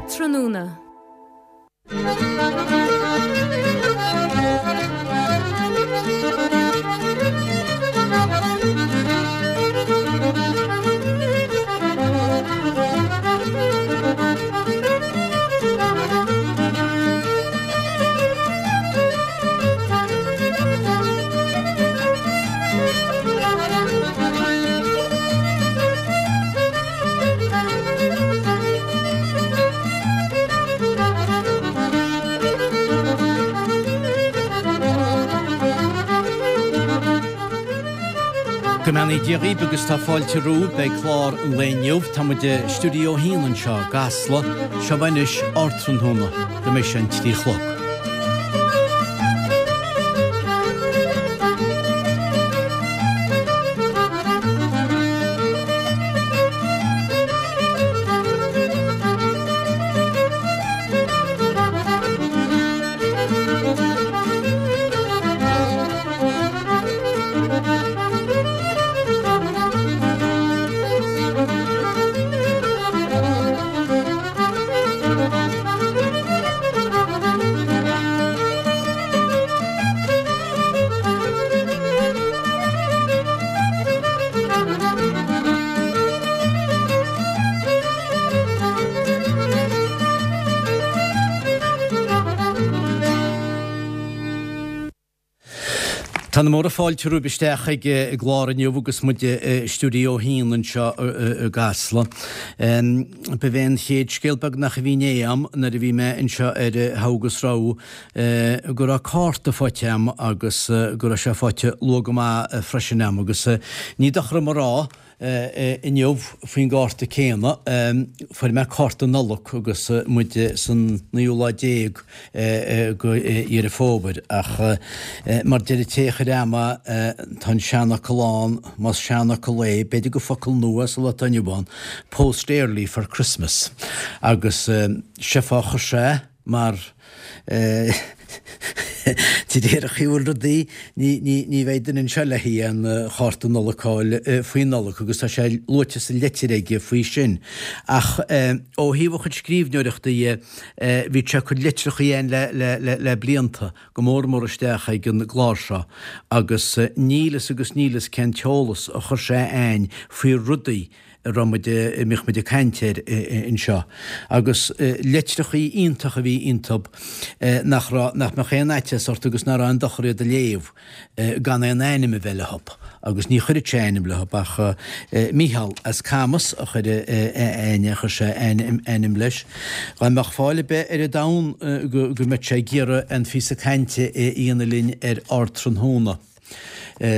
Ardtráthnóna. Go mbeannaí Dia dhaoibh agus tá fáilte romhaibh beidh clár an lae inniu. Tá muid i Stiúideo 1 anseo i gCasla. Seo anois Ardtráthnóna go mbeidh sé an 3 a chlog. Tá na móra fáilte romhaibh isteach ag an gclár inniu agus muid i Stiúideo 1 anseo i gCasla. Ba é an chéad scéal beagnach a bhí inné a'm nuair a bhí mé anseo ar Thogha agus Rogha go raibh cárta faighte a'm agus go raibh sé faighte luath go maith freisin a'm agus ní dochar dom a rá inniu faoin gcárta céanna, fuair mé cárta Nollag agus muid san naoú lá déag de Dheireadh Fómhair ach mar deir an té a chuir a'm é, tá an seanfhocal ann, más seanfhocal é, b'fhéidir gur focal nua sa lá atá inniu ann, post early for Christmas agus sé fáth a chuir sé mar de réir an chaoi a bhfuil rudaí, ní bheidh duine anseo le haghaidh aon chárta Nollag a fháil faoi Nollaig agus tá sé luaite sa leitir aige faoi sin. Ach ó thaobh a chuid scríbhneoireachta dhe, bhí sé ag cur litreacha againn le blianta, go mór mór isteach ag an gclár seo agus níl fhios agus níl fhios cén t-eolas a chuir sé againn faoi rudaí a raibh muid, a mbíodh muid ag caint air anseo. Agus litreachaí iontacha a bhí iontub nach raibh, nach mbeadh aon fhaitíos ort agus nach raibh aon dochar iad a léamh gan aon ainm a bheith leothub. Agus ní chuireadh sé ainm leothub ach Mícheál as Camas a chuir aon, a chuir sé ainm leis. Dá mbeadh fáil ar bith ar an domhan go mbeadh sé ag iarraidh aon phíosa cainte a dhéanamh linn ar Ardtráthnóna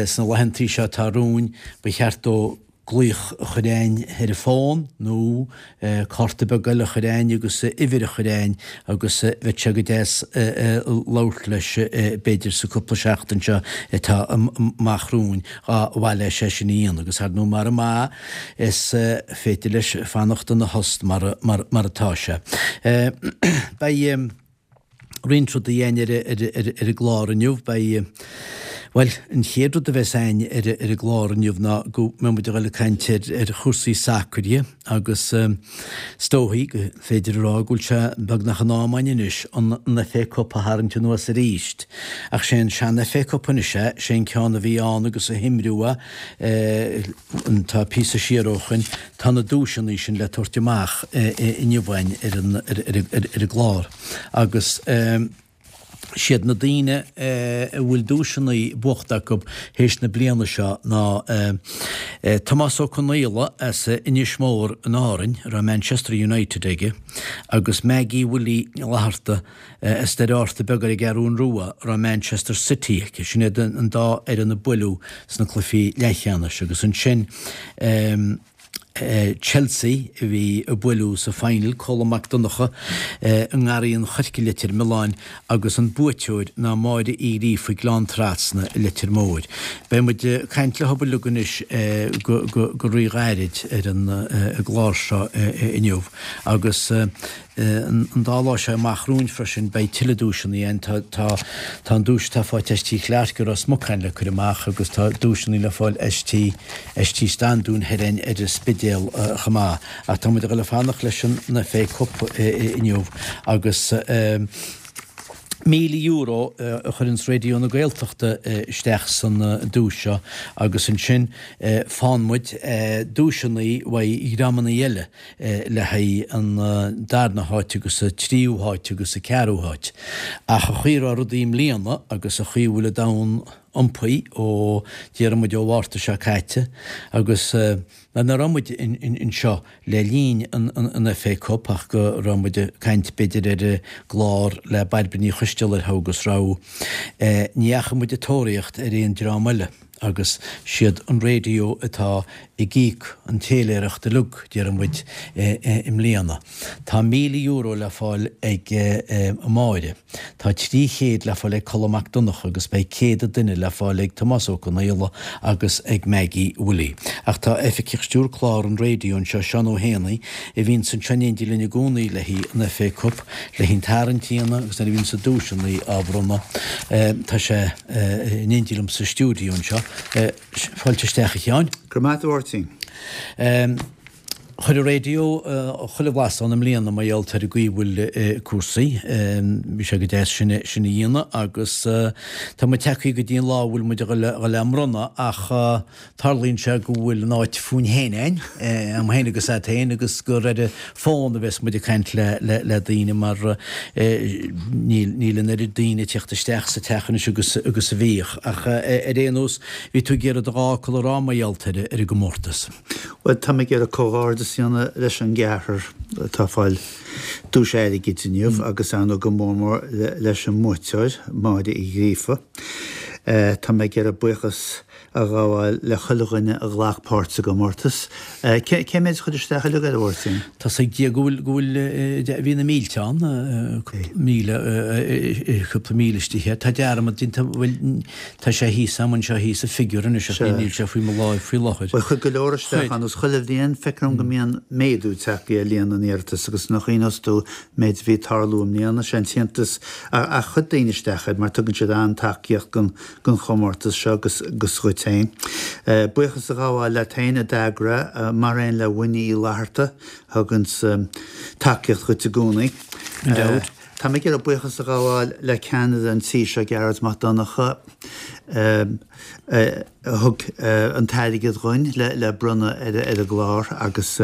sna laethantaí seo atá romhainn, ba cheart dó glaoch a chur a'ainn ar an bhfón nó cárta beag eile a chur a'ainn agus uimhir a chur a'ainn agus bheadh sé go deas labhairt leis b'fhéidir sa cúpla seachtain seo atá amach romhainn dá mhaith leis é sin a dhéanamh agus ar ndóigh mara maith is féidir leis fanacht ina thost mar atá sé. Beidh. roinnt rudaí a'ainn ar an gclár inniu. Beidh, bhuel, an chéad rud a bheas a'ainn ar an gclár inniu ná go mbeidh muid ag dul ag caint ar chúrsaí sacair agus is dóichí gur féidir a rá go bhfuil sé beagnach in am a'ainn anois an FA Cup a tharraingt anuas arís. Ach sé an sean FA Cup anois é, sé an ceann a bhí ann agus a himríodh é, tá píosa siar ó shoin, Tá na duaiseanna sin le tabhairt amach inniu a'ainn ar an gclár agus siad na daoine a bhfuil duaiseanna buachta acu théis na bliana seo ná Tomás Ó Conaola as Inis Mór in Árainn, a raibh Manchester United aige, agus Maggie Willie Fhlatharta as Doire Fhátharta Beag ar an gCeathrún Rua, a raibh Manchester City aici. Sin iad an dá fhoireann a buaileadh sna cluichí leathcheannais agus ansin Chelsea a bhí a buaileadh sa final, Colm Mac Donncha i nGarraí an Choirce i Leitir Mealláin agus an buaiteoir ná Máire Uí Ghríofa Gleann Trasna i Leitir Móir. Beidh muid ag caint leo uilig anois go ríghairid ar an gclár seo inniu agus. An dá lá seo amach romhainn freisin beidh tuilleadh duaiseanna ann. Tá tá tá an duais atá faighte as Tí Chlarke i Ros Mucáin le cur amach agus tá duaiseanna le fáil as Tí as Tí Standún thoir ar an Spidéal chomh maith. Ach tá muid ag dul a fanacht leis an FA Cup inniu agus €1,000 a chuireanns Raidió na Gaeltachta isteach san duais seo agus ansin faigheann muid duaiseanna uaidh dhreamanna eile le haghaidh an darna háit agus an tríú háit agus an ceathrú háit. Ach an chaoi a raibh rudaí i mbliana agus an chaoi a bhfuil an domhan iompaithe ó déarfaidh muid ó Mhárta seo caite agus Mar nach raibh muid anseo le linn an FA Cup ach go raibh muid ag caint b'fhéidir ar an gclár le Bairbre Ní Choisteala ar agus raibh, ní dheachaigh muid ag tóraíocht ar aon dream eile agus siad an raidió atá ag íoc an téiléireacht uilig, déarfaidh muid, i mbliana. Tá €1,000 le fáil ag Máire. Tá 300 le fáil ag Colm Mac Donncha agus beidh 100 an duine le fáil ag Tomás Ó Conaola agus ag Maggie Willie. Ach tá Oifigeach Stiúrtha Clár an Raidió anseo, Seán Ó hÉanaí, a bhíonns anseo in éindí linn i gcónaí le haghaidh an FA Cup, le haghaidh an tarraingt a dhéanamh agus nuair a bhíonns na duaiseanna á bhronnadh. Tá sé in éindí liom sa stiúideo anseo. Fáilte isteach a Sheáin. Go raibh maith agat a Mháirtín. Chuir an raidió chuile bhlas ann i mbliana mar gheall ar an gcaoi a bhfuil cúrsaí. Bhí sé go deas sin a dhéanamh agus tá muid tagtha go dtí an lá a bhfuil muid a dhul á mbronnadh ach tarlaíonn sé go bhfuil an áit fúinn féin a'inn, a'm féin agus a'd féin agus gur ar an bhfón a bheas muid ag caint le daoine mar níl an oiread daoine ag teacht isteach sa teach anois agus agus a bhíodh. Ach ar aon nós bhí tú ag iarraidh do dhá fhocal a rá mar gheall ar an gcomórtas. Bhuel, tá mé ag iarraidh comhghairdeas a dhéanamh leis an gceathrar atá ag fáil duais airgid inniu agus ar ndóigh go mór mór leis an mbuaiteoir, Máire Uí Ghríofa. Tá mé ag iarraidh buíochas a ghabháil le chuile dhuine a ghlac páirt sa gcomórtas. Cé méid a chuir isteach uilig air, a Mháirtín? Tá's ag Dia go bhfuil, go bhfuil, bhí na mílte ann, cúpla míle, cúpla míle istigh. Tá dearmad déanta, bhuel, Tá sé thíos a'm anseo thíos an figiúr anois ach níl sé faoi mo láimh faoi láthair. Bhuel, chuir go leor isteach ann agus chuile bhliain feictear dom go mbíonn méadú tagtha ar líon na n-iarratas agus nach iontas dom an méid a bhí ag tarlú i mbliana, sé an t-iontas ach chuir daoine isteach air mar tugann siad an-tacaíocht don don chomórtas seo agus agus dhuit féin. Buíochas a ghabháil leat féin a d'eagraigh mar aon le Winnie Uí Fhlatharta a thuganns tacaíocht dhuit i gcónaí. Gan dabht. Tá mé ag iarraidh buíochas a ghabháil le ceannaire an tí seo, Gearóid Mac Donncha, a thug an t-airgead dhuinn le bronnadh ar an gclár agus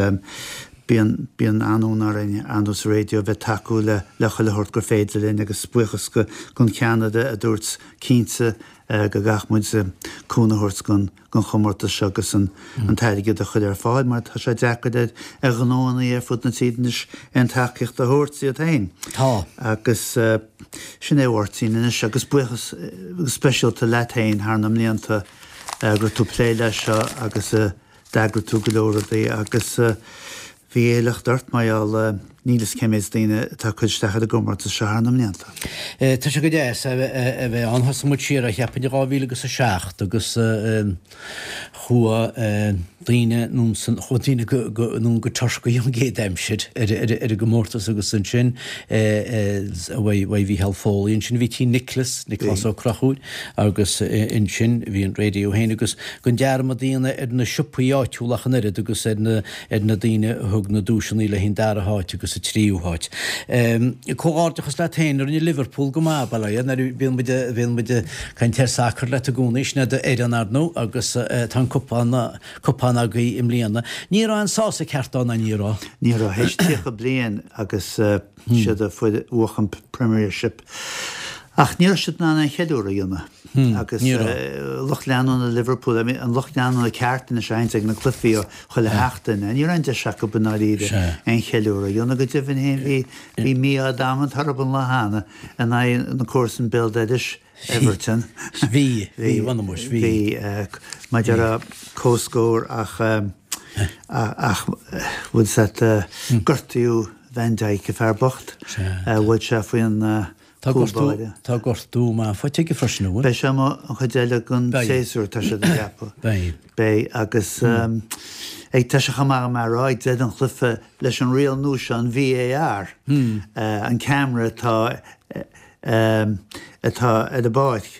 bíonn bíonn an-fhonn orainn ar ndóigh sa raidió bheith ag tacú le le chuile shórt gur féidir linn agus buíochas don cheannaire a dúirt cinnte go gcaithfidh muid cúnamh a thabhairt don don chomórtas seo agus an t-airgead a chur ar fáil mar tá sé deacair ar ghnóanna ar fud na tíre anois aon tacaíocht a thabhairt iad féin. Tá. Agus sin é a Mháirtín anois agus buíochas speisialta leat féin thar na mblianta go raibh tú ag plé leis seo agus d'eagraigh tú go leor rudaí agus Bhí éileacht ort mar gheall níl fhios cé méid daoine atá ag cur isteach ar an gcomórtas seo thar na mblianta. Tá sé go deas a bheith ann. Thosaigh muid siar, cheapfainn, i 2007 agus chuaigh daoine anonn san, chuaigh daoine anonn go Turcaí an gcéad aimsir ar an gcomórtas agus ansin uaidh Mhícheál Foley, ansin bhí Tí Nicholas, Nioclás Ó Conchúir agus ansin bhí an raidió féin agus gan dearmad a dhéanamh ar na siopaí áitiúla ach an oiread agus ar na ar na daoine a thug na duaiseanna le haghaidh an dara háit agus an tríú háit. Comhghairdeachas leat féin, rinne Liverpool go maith, bail ó Dhia, nuair a bhíonn muid, bhíonn muid ag caint ar sacar leat i gcónaí, sin é d'fhoireann ar ndóigh agus tá an cupán, cupán agaibh i mbliana. Ní raibh aon sásamh ceart ann, ná ní raibh? Ní raibh, théis 30 bliain agus siad a fuair bhuach an Premiership. Ach ní raibh siad in ann aon cheiliúradh a dhéanamh. Agus lucht leanúna Liverpool, an lucht leanúna ceart anois a théanns ag na cluichí chuile sheachtain, ní raibh aon deis acu i ndáiríre aon cheiliúradh a dhéanamh. Go deimhin féin bhí bhí mí-ádh damanta orthu an lá cheana in aghaidh na comharsan béal dorais, Everton. Bhí, bhí, bhí, bhí. Mar a déarfá comhscór ach ach bhfuil 's a't gortaíodh Van Dijk, an fear bocht. Bhuail sé faoin Tá chúl báire. Tá gortú maith faighte aige freisin, an bhfuil? Beidh sé amuigh an chuid eile den séasúr, tá siad ag ceapadh. Beidh. Beidh, agus. Ag tá sé chomh maith agam a rá ag deireadh an chluiche leis an riail nua seo, an VAR, an ceamara atá atá ar an bpáirc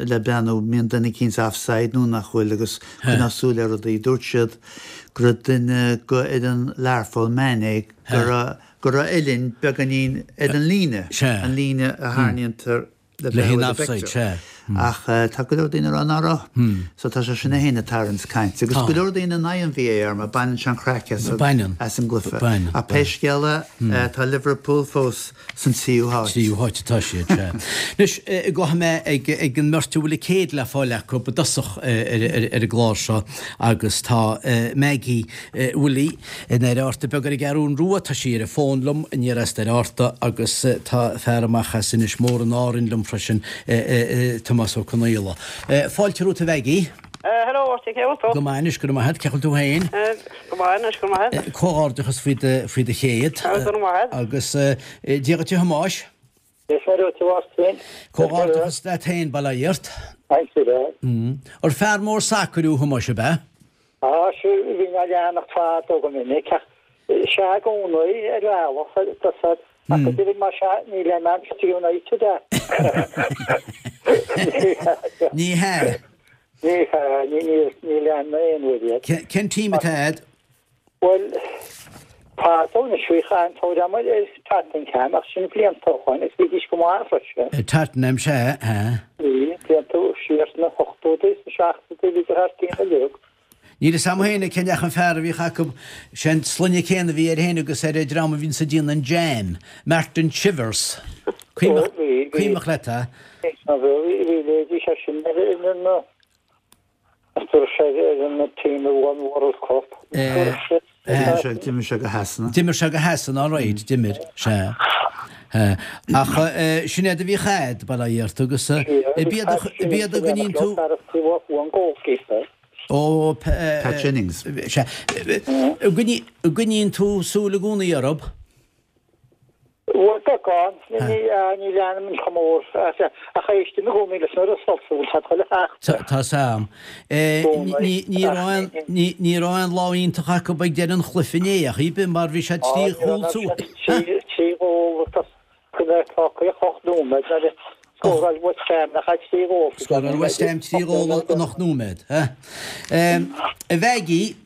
le breathnú an mbíonn duine eicínt offside nó nach bhfuil agus coinneáil súil ar rudaí. Dúirt siad go raibh duine go fhoireann Learpholl, Mané, go raibh go raibh a uillinn beagáinín ar an líne, an líne a tharraingítear le le haghaidh an offside, sea. Ach tá go leor daoine ag rá ná raibh. So tá sé sin é féin ag tarraingt cainte. Agus go leor daoine in aghaidh an VAR mar baineann sé an chraic as an as an gcluiche. Ach pé scéal é, tá Liverpool fós san tríú háit. Tríú háit atá siad, sea. Anois, gabhfaidh mé ag ag an mbeirt a bhfuil a céad le fáil acu i dtosach ar ar an gclár seo agus tá Maggie Willie i nDoire Fhatharta beag ar an gCeathrún Rua. Tá sí ar an bhfón liom aniar as Doire Fhatharta agus tá fear amach as Inis Mór in Árainn liom freisin, Tomás Ó Conaola. Fáilte romhat a Mhaggie. Hello Artie, cé bhfuil tú? Go maith anois, go raibh maith agat. Cén chaoi a bhfuil tú féin? Go maith anois, go raibh maith agat. Comhghairdeachas faoi do, faoi do chéad. Go raibh maith agat. Agus Dia dhuit a Thomáis. Dia is Muire dhuit a Mháirtín. Comhghairdeachas leat féin, bail ó Dhia ort. Thanks a lot. Ar fear mór sacair thú a Thomáis, ab ea? Á, sea, bhínn á leanacht fadó go minic, ach sea i gcónaí ar bhealach, tá ach go deimhin más ea, ní le Manchester United é. Ní hea. Ní hea, ní lean mé aon uair iad. Cén team atá a'd? Bhuel, fadó anois bhíodh an-tóir agam ar Tottenham ach sin blianta ó shoin agus bhídís go maith freisin. Tottenham, sea, sea. Bhí, blianta siar sna hochtóidí, sna seachtóidí, bhíodar thar cionn uilig. Níl fhios a'm féin cén ach an fear a bhíodh acu, sé an sloinne céanna a bhí air féin agus ar an dream a bhíonns ag déanamh an jam, Martin Chivers. Ó, bhí, bhí. Cuimhneach leat é? Bhí, bhí leithéidí seisean ar na. Dúirt sé ar an team a won World Cup. D'imir sé go Shasana. D'imir sé go Shasana, all right, d'imir, sea. Ach sin iad a bhíodh a'd, bail ó Dhia ort, agus b'iad a gcoinníonn tú... Ó, Pat Jennings. Sea. Gcoinníonn tú súil i gcónaí orthu? Bhuel, beagán. Ní leanaim chomh mór ach éistim i gcónaí leis na results a bhfuil siad chuile sheachtain. Tá 's a'm. Ní raibh aon lá iontach acu ag deireadh an chluiche inné ach ar bith mar bhí sé 3 chúl suas. 3 ghól tá 8 nóiméad nuair a scóráil West Ham nach ea 3 ghól. Scóráil West Ham 3 ghól in 8 nóiméad. A Mhaggie,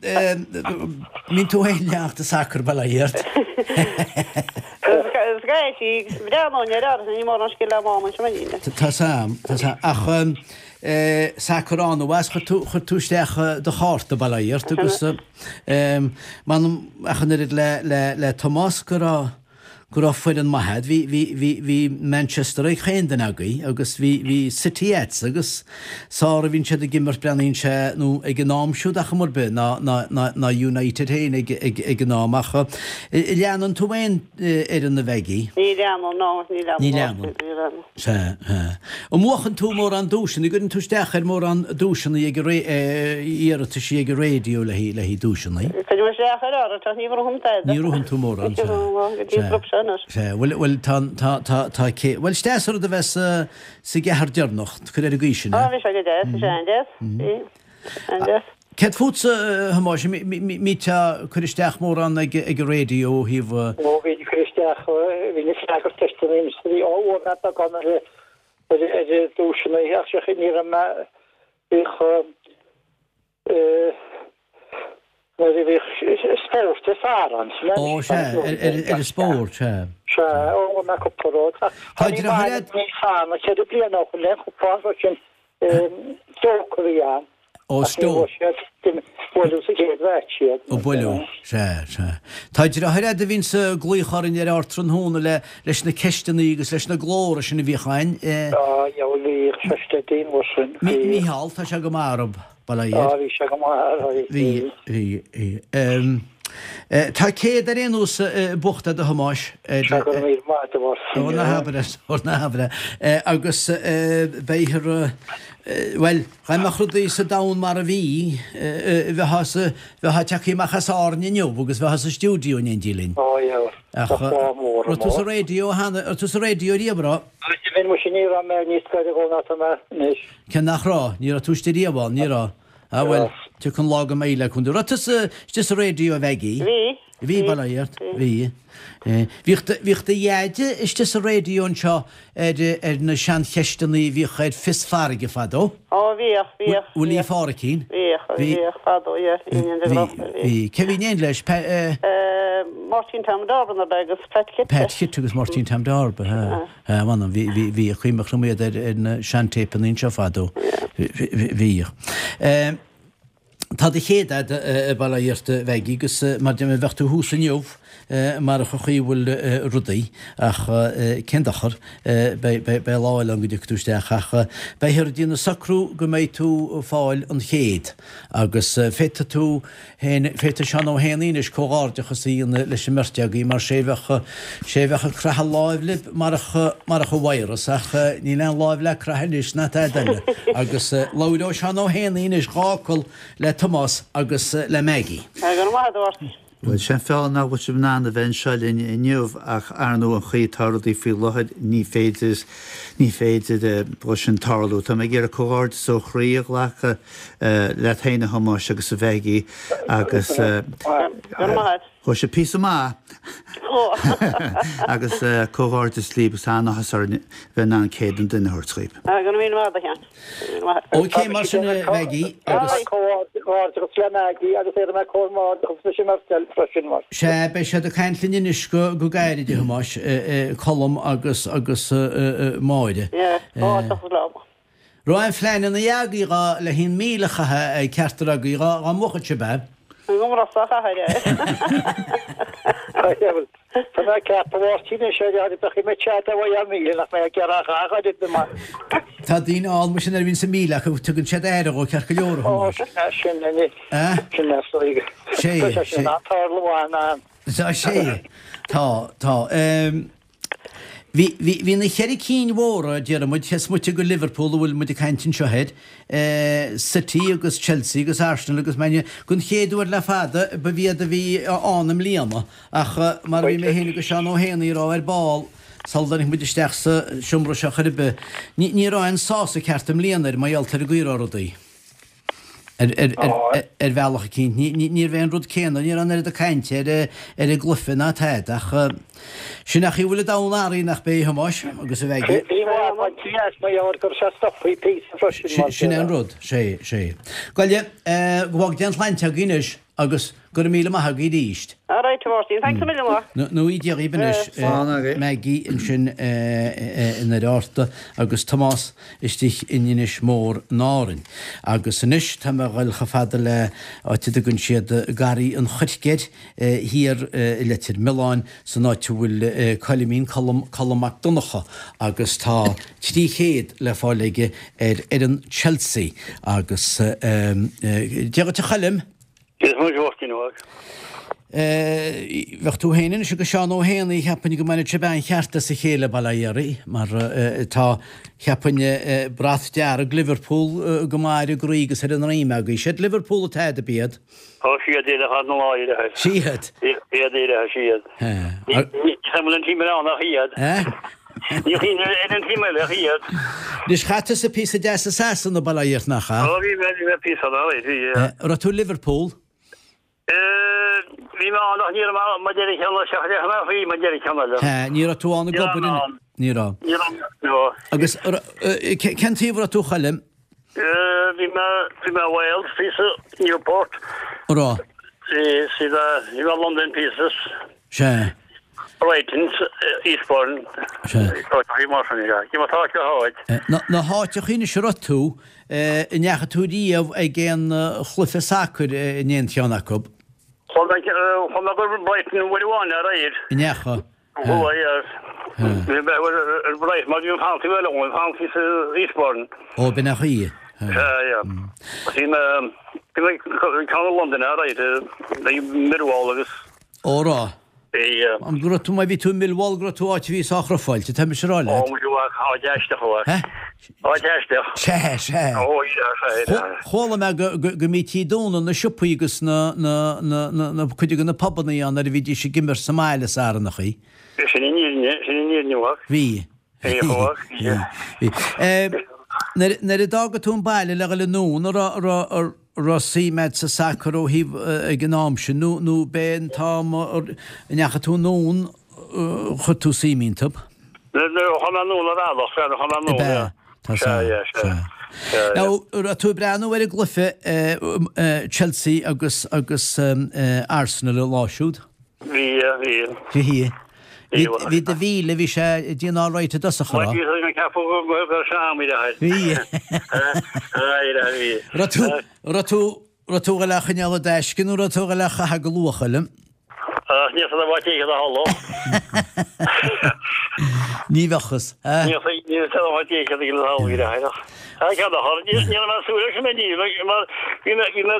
mbíonn tú féin ag leanacht an sacar bail ó Dhia ort. Is gaisí, breathnóinn air ach ní mórán scil agam ann anseo mar Tá 's a'm, tá 's a'm. Ach sacar an-mhaith, chuir tú, chuir tú isteach do chárta bail ó Dhia ort agus m'anam ach an oiread le, le, le Tomás go raibh, go raibh foireann maith a'd. Bhí, bhí, bhí, bhí Manchester ag chaon duine agaibh agus bhí, bhí City a'dsa agus sár a bhíonn siad ag imirt breathnaíonn sé nó ag an am siúd ach chuma ar bith ná, ná, ná, ná United féin ag, ag, ag an am ach leanann tú aon fhoireann a Mhaggie? Ní leanaim, no, ní leanaim. Ní leanann. Ní leanaim. Sea, sea. An mbuachann tú mórán duaiseanna? An gcuireann tú isteach ar mórán duaiseanna ag an iarrataisí ag an raidió le haghaidh duaiseanna? Cuirim isteach ar áirithe ach ní bhuaim tada. Ní bhuann tú mórán, sea. Go dtí an grúpa seo anois. Sea, bhuel, bhuel, tá, tá, tá, tá, cé, bhuel, is deas an rud a bheith sa, sa gceathrar deireanach, cuir ar an gcaoi sin é. Á, bhí sé go deas, bhí sé an-deas, bhí, an-deas. Céard fútsa, a Thomáis, an mbíteá ag cur isteach mórán ag an raidió ó thaobh. Ó, bhínn ag cur isteach, bhínn ag freagairt ceisteanna bhí á bhuaigh mé beagán ar ar duaiseanna ach sea ní raibh mé, bhíodh nuair a bhíodh spórt is fearr ann. Ó, sea, ar an spórt, sea. Sea, ó, bhuaigh mé cúpla rud. Tá deartháir agat? Ní fana 4 bliana ó shin le cúpla rud sin Stoke a bhí ann. Ó, Stoke. Buaileadh sa gcéad mheaits iad. Ó, buaileadh. Sea, sea. Tá deartháir agat a bhíonns ag glaoch orainn ar ardtráthnóna le, leis na ceisteanna agus leis na glóra sin a bhíodh ann. Á, dheabhail bhíodh sé steady an uair sin. Mícheál, tá sé go maith orthu, bail ó Dhia air. Á, bhí sé go maith, bhí. Bhí, bhí, bhí. Tá 100 ar aon nós buachta a'd a Thomáis. Sea, go raibh míle maith agat a Mháirtín. Ó ná habair é, ó ná habair é. Agus beifear, bhuel, dá mbeadh rudaí sa domhan mar a bhí, bheifeá sa, bheifeá tagtha amach as Árainn inniu agus bheifeá sa stiúideo in éindí linn. Ó yeah, Ach bheadh lá mór raibh tú sa raidió cheana, raibh tú sa raidió riamh, raibh? Bhí, muise ní raibh mé níos gaire dhó ná tá mé anois. Cé nach raibh, ní raibh tú istigh riamh ann, ní raibh. Ah bhuel, tiocfaidh an lá go mbeidh le cúnamh. Raibh tusa istigh sa raidió a Mhaggie? Bhí. Bhí, bail ó Dhia ort. Bhí. Bhíodh do, bhíodh do dheaide istigh sa raidió anseo ar, ar na seancheisteanna a bhíodh ar Fios Farraige fadó. Ó bhíodh, bhíodh. Willie Pháricín. Bhíodh, bhíodh fadó, yeah, bhí in Bhí, bhí. Cé bhí in éindí leis? Pa, eh. Máirtín Tom Darba nó agus Pat Chite. Pat Chite agus Máirtín Tom Darba, ha. Ha, mh'anam, bhí, bhí, bhí, cuimhneach liom iad ar, ar na seantéipeanna anseo fadó. Bhíodh. Eh. Tá do chéad a'd, bail ó Dhia ort, a Mhaggie, agus mar deir mé, bheadh tú thuas inniu marach an chaoi a bhfuil rudaí, ach cén dochar, beidh lá eile ann go dtiocfaidh tú isteach, ach beifear ag déanamh socrú go mbeidh tú ag fáil an chéad, agus féadfaidh tú féin, féadfaidh Seán Ó hÉanaí anois comhghairdeachas a dhéanamh leis an mbeirt agaibh mar sé bheadh, sé bheadh ag croitheadh láimh libh marach, marach an virus ach níl aon láimh le croitheadh anois ná tada eile agus labhróidh Seán Ó hÉanaí anois dhá fhocal le Tomás agus le Maggie. Go raibh maith agat a Mháirtín. Bhuel, sé an fáth nach bhfuil sibh in ann a bheith anseo linn inniu ach ar ndóigh an chaoi atá rudaí faoi láthair ní féidir, ní féidir dhó sin tarlú. Tá mé ag iarraidh comhghairdeas ó chroí a ghlacadh leat féin a Thomáis agus a Mhaggie agus ghabh sibh píosa maith agus comhghairdeas libh agus an-áthas orainn bheith in ann céad an duine a thabhairt dhaoibh. Go raibh míle maith agat a Sheáin. Ok mar sin a Mhaggie agus. Comhghairdeachas le Maggie agus iarrfaidh mé comhghairdeachas leis an mbeirt eile freisin mar. Sea, beidh siad ag caint linn anois go gairid a Thomáis, Colm agus agus Máire. Yeah, comhghairdeachas leo. Raibh aon phleananna agaibh dhá le haon 1,000 a chaitheamh ag ceachtar agaibh dhá dhá mbuafadh sibh é? An gcomhrá a chathair é. Tá mé ag ceapadh a Mháirtín anois ar ar bheadh mé tead a bheidh ar 1,000 nach mbeidh ag iarraidh a dhath ar bith mar. Tá daoine ann mar sin nuair a bhíonn sa 1,000 acu tugann siad aire dhó ceart go leor a Thomáis. Ó sin é sin é Sé Tá sé sin an-tarlú an. Tá sé tá tá. Bhí, bhí, bhí na cheithre cinn mhóra, déarfaidh muid, cé is moite de Liverpool a bhfuil muid ag caint anseo air, City agus Chelsea agus Arsenal agus Man U, den chéad uair le fada ba iad a bhí ann i mbliana ach mar a bhí mé féin agus Seán Ó hÉanaí ag rá ar ball sula dtáinig muid isteach sa seomra seo chor ar bith, ní, ní raibh aon sásamh ceart i mbliana air mar gheall ar an gcaoi a raibh rudaí. Ar bhealach eicínt. Ní raibh aon rud céanna, ní raibh an oiread cainte ar an gcluiche ná tada ach sin an chaoi a bhfuil an domhan athraithe nach b'é a Thomáis agus a Mhaggie. Sin é an rud, sé, sé. Gabhaile, go bhfága Dia an tsláinte agaibh anois agus Go raibh míle maith agaibh arís. All right, a Mháirtín, thanks a million. Nó Dia dhaoibh anois. Maggie ansin i nDoire Fhatharta agus Tomás istigh in Inis Mór in Árainn. Agus anois tá mé a dhul chomh fada le áit a dtugann siad Garraí an Choirce air thiar i Leitir Mealláin san áit a bhfuil Coilimín, Colm, Colm Mac Donncha agus tá 300 le fáil aige ar fhoireann Chelsea agus Dia dhuit a Choilm! Dia duit a Mháirtín óg. Bheadh tú féin anois agus Seán Ó hÉanaí, cheapfainn go mbainfeadh sibh an-cheart as a chéile, bail ó Dhia oraibh, mar tá, cheapfainn, brat dearg Liverpool go maith ar an gcroí agus ar an ndroim agaibh. Siad Liverpool atá a'd, ab iad? Ó, siad iad ar na láithreacha. Siad? Iad iad, siad. Ní bhfuil an team eile ann ach iad. Ní bhíonn ar an team eile ach iad. Anois, chaith tusa píosa deas i Sasana, bail ó Dhia ort, nach ea? Ó, bhí mé, bhí mé píosa ann, alright, bhí, yeah. Raibh tú i Liverpool? Bhí mé ann ach ní raibh mé ann maidir le ceann eile, seachas le ceann eile, maidir le ceann eile. Ní raibh tú ann ag obair in, ní raibh. Ní raibh, no. Agus cén taobh a raibh tú, a Choilm? Bhí mé, bhí mé i Wales píosa, Newport. Raibh? Bhí, bhí mé i London píosa. Sea. Brighton, Eastbourne. Sea. Áiteachaí mar sin, yeah. Cé mar tá acu háit. Na háiteachaí anois a raibh tú, an ndeachaigh tú riamh ag aon chluiche sacair in aon cheann acu? Chuaigh mé, chuaigh mé go Brighton uair amháin aréir. An ndeachaigh? Chuaigh, yeah. Bhí mé ar Brighton mar bhí an fancy eile ann, fancy sa Eastbourne. Ó, b'in é an chaoi. Sea, yeah. Bhí mé, bhí mé ceann i Londain aréir, ag Millwall agus. Ó raibh. Bhí. An go raibh tú, má bhí tú i Millwall go raibh tú áit a bhí sách rufáilte, tá mise a rá leat. Ó, muid uaidh, áit aisteach uaidh. Hé? Áit aisteach. Sea, sea. Ó, sea, sea, sea. Chuala mé go, go, go mbítí ag dúnadh na siopaí agus na, na, na, na, na, cuid de na pubannaí ann nuair a bhídís ag imirt sa mbaile Sarannachaí. Sin an fhírinne, sin an fhírinne uaidh. Bhí. Bhí, uaidh, bhí. Bhí. Nuair, nuair a d'fhága tú an baile le dhul anonn, an raibh, an raibh, an. Raibh suim a'd sa sacar ó thaobh ag an am sin nó nó b'é an t-am a ndeachaigh tú anonn chuir tú suim iontu? Nuair a chuaigh mé anonn ar bhealach, sea, nuair a chuaigh mé anonn, Ab ea? yeah. Tá Sea, sea, yeah, sea. sea. Sea, yeah. Now, raibh tú ag breathnú ar an gcluiche Chelsea agus agus Arsenal an lá siúd? Bhí, yeah, bhí. Bhí. Bhí, bhí do mhíle, bhí sé ag déanamh all right i dtosach, an Bhuel, raibh? bhí mé ag ceapadh go raibh sé am i láthair. Bhí. Bhí. Raibh tú, raibh tú, raibh tú ag dul é a choinneáil i dtaisce nó raibh tú ag dul é a chaitheamh go luath, a Choilm? Ach níl fhios agam cé hiad a tharla. Ní bheadh fhios, eh? Níl fhios agam cé hiad a tharla i láthair ach. Ceann a chur, ní raibh mé ag súil leis an mbeidh mar bhí mé bhí mé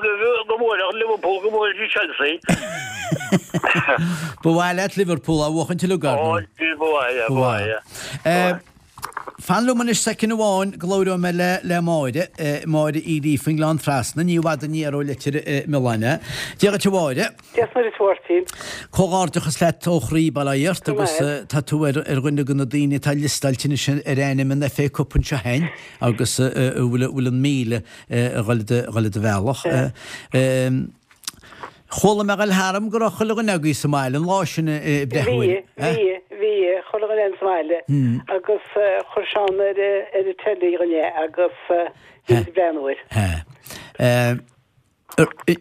go mbuailfeadh Liverpool go mbuailfeadh Chelsea. Ba mhaith leat Liverpool a bhuachaint uilig, ar ndóigh. Ó, ba mhaith, yeah, ba mhaith, yeah. Fan liom anois soicind amháin go labhróidh mé le le Máire, Máire Uí Ríofa ón nGleann Trasna, ní i bhfad aniar ó Leitir Mealláin é. Dia dhuit a Mháire. Dia is Muire duit a Mháirtín. Comhghairdeachas leat ó chroí, bail ó Dhia ort, agus tá tú ar dhuine de na daoine atá liostáilte anois ar ainm an FA Cup anseo féin agus a bhfuil an 1,000 a dhul i do bhealach. Chuala mé ag dul tharam go raibh chuile dhuine agaibh sa mbaile an lá sin ag breathnú air. Bhí, bhí, bhí, chuile dhuine sa mbaile agus chuir Seán ar an teilí dhúinn é agus bhí muid ag breathnú air. Hea.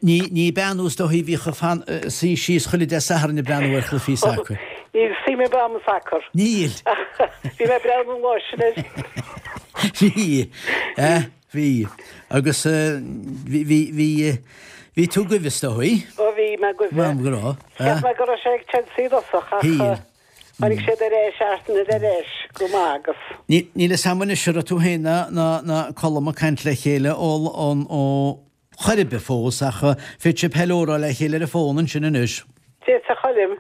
Ní, ní bean thú is dóichí a bhíodh ag fan, suí síos chuile Dé Sathairn ag breathnú ar chluichí sacair. Níl suim ar bith a'm i sacar. Níl. Bhí mé ag breathnú an lá sin air. Bhí. Bhí. Agus bhí, bhí, bhí, bhí tú goimh is dóigh? Ó bhí mé goimh. M'anam go raibh. Cheap mé go raibh sé ag Chelsea i dtosach ach tháinig siad ar ais, Arsenal ar ais go maith agus. Níl fhios a'm anois an raibh tú féin ná, ná, ná Colm ag caint le chéile ó, ón, ó chor ar bith fós ach féadfaidh sibh hello a rá le chéile ar an bhfón ansin anois. Dia duit a Choilm.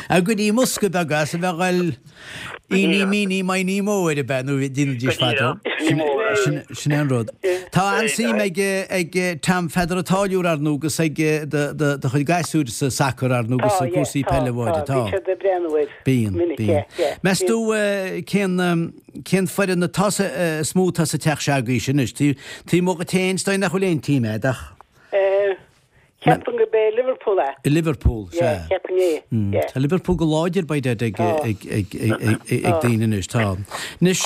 Go dtí mbosca beag as a bheith ag dul Eeny meeny miny mo ar bith nó déanaidís fadó. Sin é an rud. Tá an-suim ag ag Tom Pheadar an Táilliúir ar ndóigh agus ag do chuid gasúir sa sacar ar ndóigh agus cúrsaí peile a Mháire. Tá. Bíonn siad ag breathnú air. Bíonn, bíonn. Meas tú cén, cén foireann atá sa, is mó atá sa teach seo agaibhse anois? Taobh amuigh díot féin, is dóigh nach bhfuil aon team agat ach. Ceapaim gurb é Liverpool é. Liverpool, sea. Yeah, ceapaim é, yeah. Tá Liverpool go láidir by dad ag, ag, ag, ag daoine anois, tá. Anois,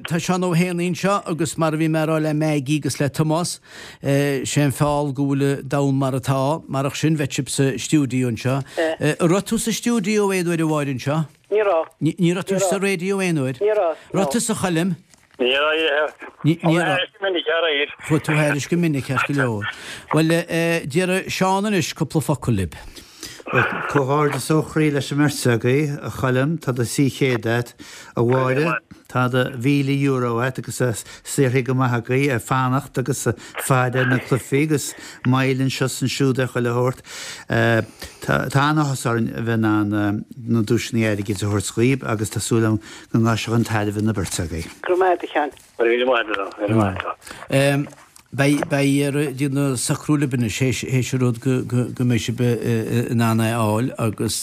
tá Seán Ó hÉanaí anseo agus mar a bhí mé a rá le Maggie agus le Tomás, Sé an feall go bhfuil an domhan mar atá, marach sin bheadh sibh sa stiúideo anseo. An raibh tú sa stiúideo aon uair a Mháire anseo? Ní raibh. Ní raibh tú sa raidió aon uair? Ní raibh, no. Raibh tusa a Choilm? Ní raibh. Ní raibh. Go minic aréir. Chuaigh tú thairis go minic ceart go leor. Bhuel, déarfaidh Seán anois cúpla focal libh. Bhuel, comhghairdeas ó chroí leis an mbeirt agaibh, a Choilm, tá do 300 a't, a Mháire, tá do €1,000 a't agus saothraithe go maith agaibh ag fanacht agus ag faire ar na cluichí agus moill anseo is ansiúd ar chuile shórt. Tá an-áthas orainn a bheith in ann na duaiseanna airgid a thabhairt dhaoib agus tá súil agam go ngabhfaidh sé chun tairbhe na beirte agaibh. Go raibh maith a't a Sheáin. Go raibh maith agat, go raibh maith agat. Beidh, beidh ar déanamh socrú libh anois théis, théis an rud go, go, go mbeidh sibh in ann é a fháil agus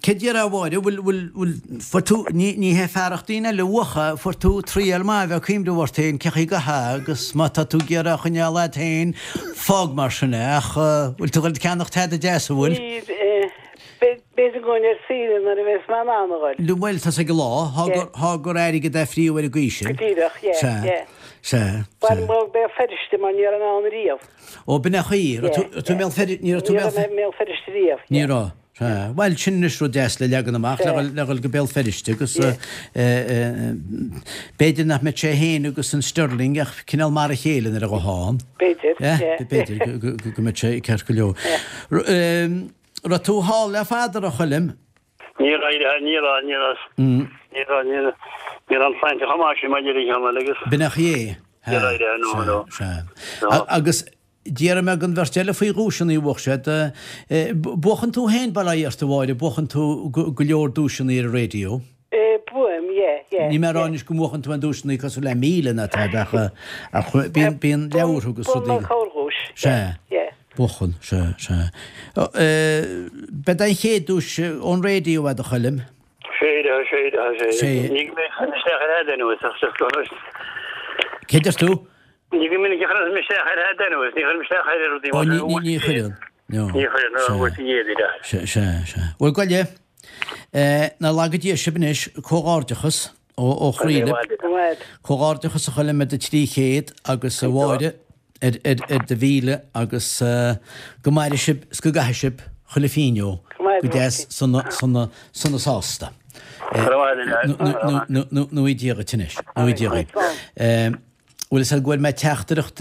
céard déarfá a Mháire, bhfuil, bhfuil, bhfuil, fuair tú, ní, ní hé fearacht daoine eile uathu, fuair tú triail maith a bheith ag cuimhneamh ort féin cén chaoi go hea agus má tá tú ag iarraidh a choinneáil agat féin, fág mar sin é ach bhfuil tú ag dul ag ceannacht tada deas, an bhfuil? Níl, B'fhéidir go bhfuil ar saoire nuair a bheas mé in ann a ghoil. Bhuel, tá's ag an lá, thá gur airgead é phríomh ar an gcaoi sin. Go díreach, yeah, Sea, yeah. sea, Bhuel, sea. mo Béal Feirste mar ní raibh mé ann riamh. Ó, b'in é an chaoi, raibh tú, raibh tú i mBéal Feirste, ní raibh tú i Ní mBéal raibh mé i mBéal Feirste riamh, Ní yeah. raibh, sea. Bhuel, sin anois rud deas le leagan amach, le Sea. dhul, le dhul go Béal Feirste agus Yeah. eh, eh, b'fhéidir nach mbeadh sé féin agus an Sterling ach cineál mar a chéile nuair a ghabhfá ann. B'fhéidir, Yeah, yeah. b'fhéidir go, go, go, go mbeadh sé ceart go leor. Yeah. R- eh, Raibh tú thall le fada, a raibh, a Choilm? Ní raibh, ní raibh, ní raibh, ní raibh, ní raibh, ní raibh an tsláinte chomh maith sin mar a déarfainn cheana agus. B'in é an chaoi é. Ní raibh, no, no. Sea, sea. Agus déarfaidh mé don bheirt eile faoi dhuaiseanna a bhuaigh siad, buachann tú féin, bail ó Dhia ort, a Mháire, buachann tú go leor duaiseanna ar an raidió. Buaim, yeah, yeah. Níl mé ag rá anois go mbuachann tú aon duaiseanna cosúil le 1,000 ná tada ach bíonn, bíonn leabhartha agus rudaí. Buaim corrdhuais, yeah, yeah. Buachan, sea, sea. B'é an chéad duais ón raidió é, a Choilm? Sea, sea, sea. Ní go minic a chuirim isteach ar fhad anuas ach just go raibh. Cé deir tú? Ní go minic a chuirim isteach ar fhad anuas, ní chuirim isteach ar rudaí mar sin. Ó, ní chuireann. Ní chuireann, nó bhfuil sí éadaí leat. Sea, sea, sea. Bhuel, gabh i leith, ná laga Dia sibh anois, comhghairdeachas ó chroí libh. Comhghairdeachas a Choilm ar do 300 agus a Mháire ar do mhíle agus go maire sibh is go gcaithe sibh chuile phingin go deas sona sona sona sásta. Nó i Dia dhuit anois. Nó i Dia dhuit. Bhuel is ea go bhfuair mé teachtaireacht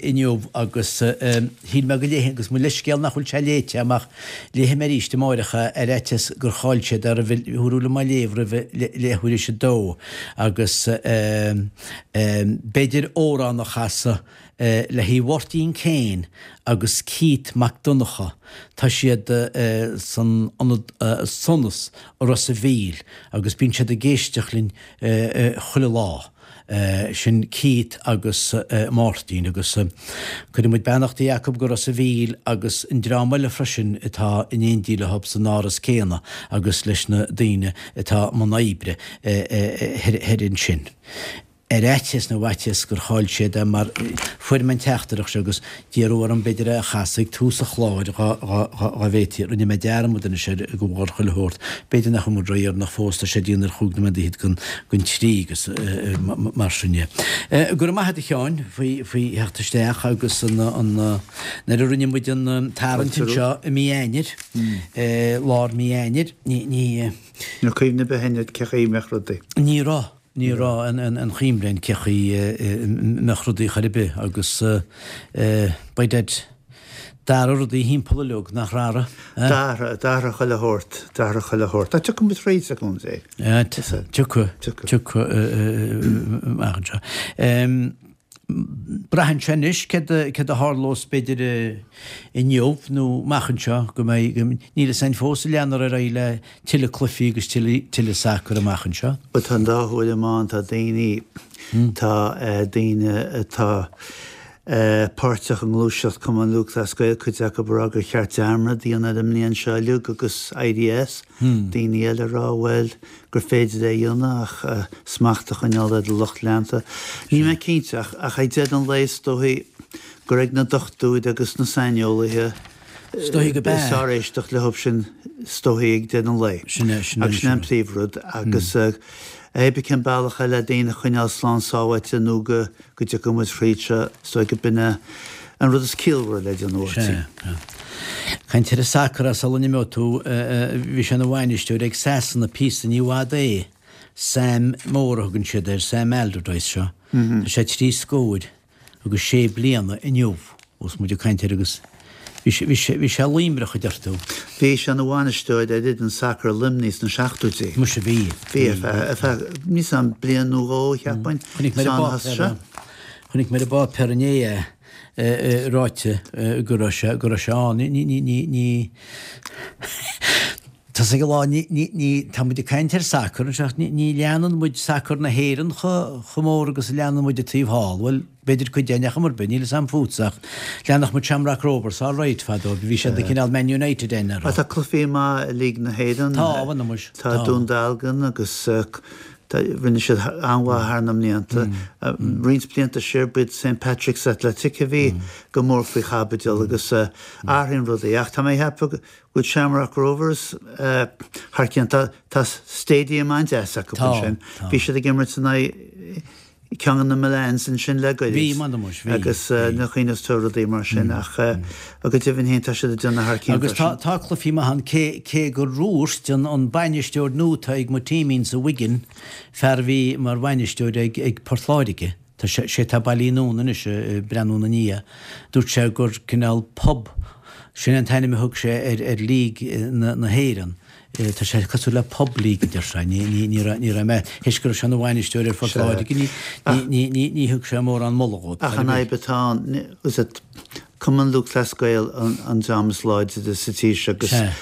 inniu agus shíl mé go léifinn agus mo leithscéal nach bhfuil sé léite agam ach léifidh mé arís amáireach é ar fhaitíos gur chaill siad é roimh thiúrú liom á léamh roimh leathuair théis a dó agus b'fhéidir amhrán a chasadh le haghaidh Mháirtín Kane agus Keith Mac Donncha tá siad san ionad Sonas i Ros a' Mhíl agus bíonn siad ag éisteacht linn chuile lá. Sin Keith agus Máirtín agus cuireann muid beannachtaí acu go Ros a' Mhíl agus an dream eile freisin atá in éindí leo san áras céanna agus leis na daoine atá i mbun oibre thoir ansin. Ar fhaitíos nó fhaitíos gur chaill siad é mar fuair mé an teachtaireacht seo agus d'iarradh orm b'fhéidir é a chasadh ag tús an chláir dá bhféadfaí. Rinne mé dearmad anois air de bharr chuile shórt. B'fhéidir nach bhfuil muid ródheireanach fós, tá sé ag déanamh ar chúig nóiméad fhichead don don trí agus mar sin de. Go raibh maith agat a Sheáin faoi faoi theacht isteach agus an an nuair a rinne muid an tarraingt anseo i mí Eanáir, lár mí Eanáir, ní ní. Ní raibh cuimhne ar bith againn cé chaoi a mbeadh rudaí. Ní raibh. Ní raibh aon chuimhne againn cé chaoi a mbeadh rudaí chor ar bith agus by dad d'athraigh rudaí thimpeall uileag, nach raibh? D'athraigh, d'athraigh chuile shórt, d'athraigh chuile shórt. Ach tiocfaidh muid thríd, a Chontae. Tiocfaidh, tiocfaidh amach anseo. Braitheann sé anois céard a tharlós b'fhéidir inniu nó amach anseo go mbeidh, níl fhios againn fós an leanfar ar aghaidh le tuilleadh cluichí agus tuilleadh sacair amach anseo. Bhuel tá an dá thuairim ann, tá daoine, tá daoine atá páirteach i ngluaiseacht Cumann Lúthchleas Gael, cuid acu ag rá gur cheart dearmad a dhéanamh ar an mbliain seo uilig agus éirí as, daoine eile ag rá bhuel gur féidir é a dhéanamh ach smacht a choinneáil ar do lucht leanta. Níl mé cinnte ach ach ag deireadh an lae is dóichí gur ag na dochtúirí agus na saineolaithe Is dóichí go is fearr éisteacht leo sin is dóichí ag deireadh an lae. Sin é, sin é. Agus sin é an príomhrud agus hé bith cén bealach é le daoine a choinneáil slán sábháilte nó go go dtiocfaidh muid thríd seo, is dóigh go b'in é an rud is ciallmhaire le déanamh, a Mháirtín. Sea. Caint ar an sacar sula n-imeoidh tú, bhí sé ina bhainisteoir ag Sasana píosa, ní i bhfad é, Sam Mór a thugann siad air, Sam Allardyce seo. Tá sé trí scóir agus sé bliana inniu ós muid ag caint air agus bhí sé, bhí sé, bhí sé luimreach a deir tú. Bhí sé ina bhainisteoir ar fhoireann sacair Luimnigh sna seachtóidí. Muise bhí. Bhí, ar feadh, ar feadh, níl 'fhios a'm, bliain nó dhó, cheapfainn. Chonaic mé ar an bpáipéar, chonaic mé ar an bpáipéar inné é ráite go raibh sé, go raibh sé ann. Ní, ní, ní, ní, tá 'fhios ag a lán, ní, ní, ní, tá muid ag caint ar sacar anseo ach ní, ní leanann muid sacar na hÉireann chomh, chomh mór agus a leanann muid an taobh thall. Bhuel, B'fhéidir cuid againn ar chuma ar bith, níl 'fhios a'm fútsa ach leanfadh muid Shamrock Rovers all right fadó, bhí siad ag cineál Man United againn ar. Tá cluichí maith i League na hÉireann. Tá, bhuel muis, tá. Tá Dún Dealgan agus rinne siad an-mhaith thar na mblianta. Roinnt blianta siar b'iad St Patrick's Athletic a bhí go mór faoi chaibidil agus athraíonn rudaí ach tá mé ag ceapadh go bhfuil Shamrock Rovers thar cionn. Tá stadium an-deas acu ansin. Bhí siad ag imirt in aghaidh ceann de na Milans ansin le goirid. Bhí, m'anam muis, bhí. Agus na cuimhneos tú rudaí mar sin ach go deimhin féin tá siad ag déanamh thar cionn Agus tá, tá cluichí maith ann cé, cé gur dhúirt an, an bainisteoir nua atá ag mo teamín sa Wigan, fear a bhí mar bhainisteoir ag, ag Port Láirge, tá sé, sé atá bailithe anonn anois ag breathnú ina ndiaidh, dúirt sé gur cineál pub, sin an t-ainm a thug sé ar, ar League na, na hÉireann. Tá sé cosúil le pub league a deir sé. Ní raibh mé, théis go raibh sé ina bhainisteoir ar Phort Láirge, ní thug sé mórán moladh dhóibh. Ach an fhadhb atá ann, is é Cumann Lúthchleas Gael an dream is láidre sa tír seo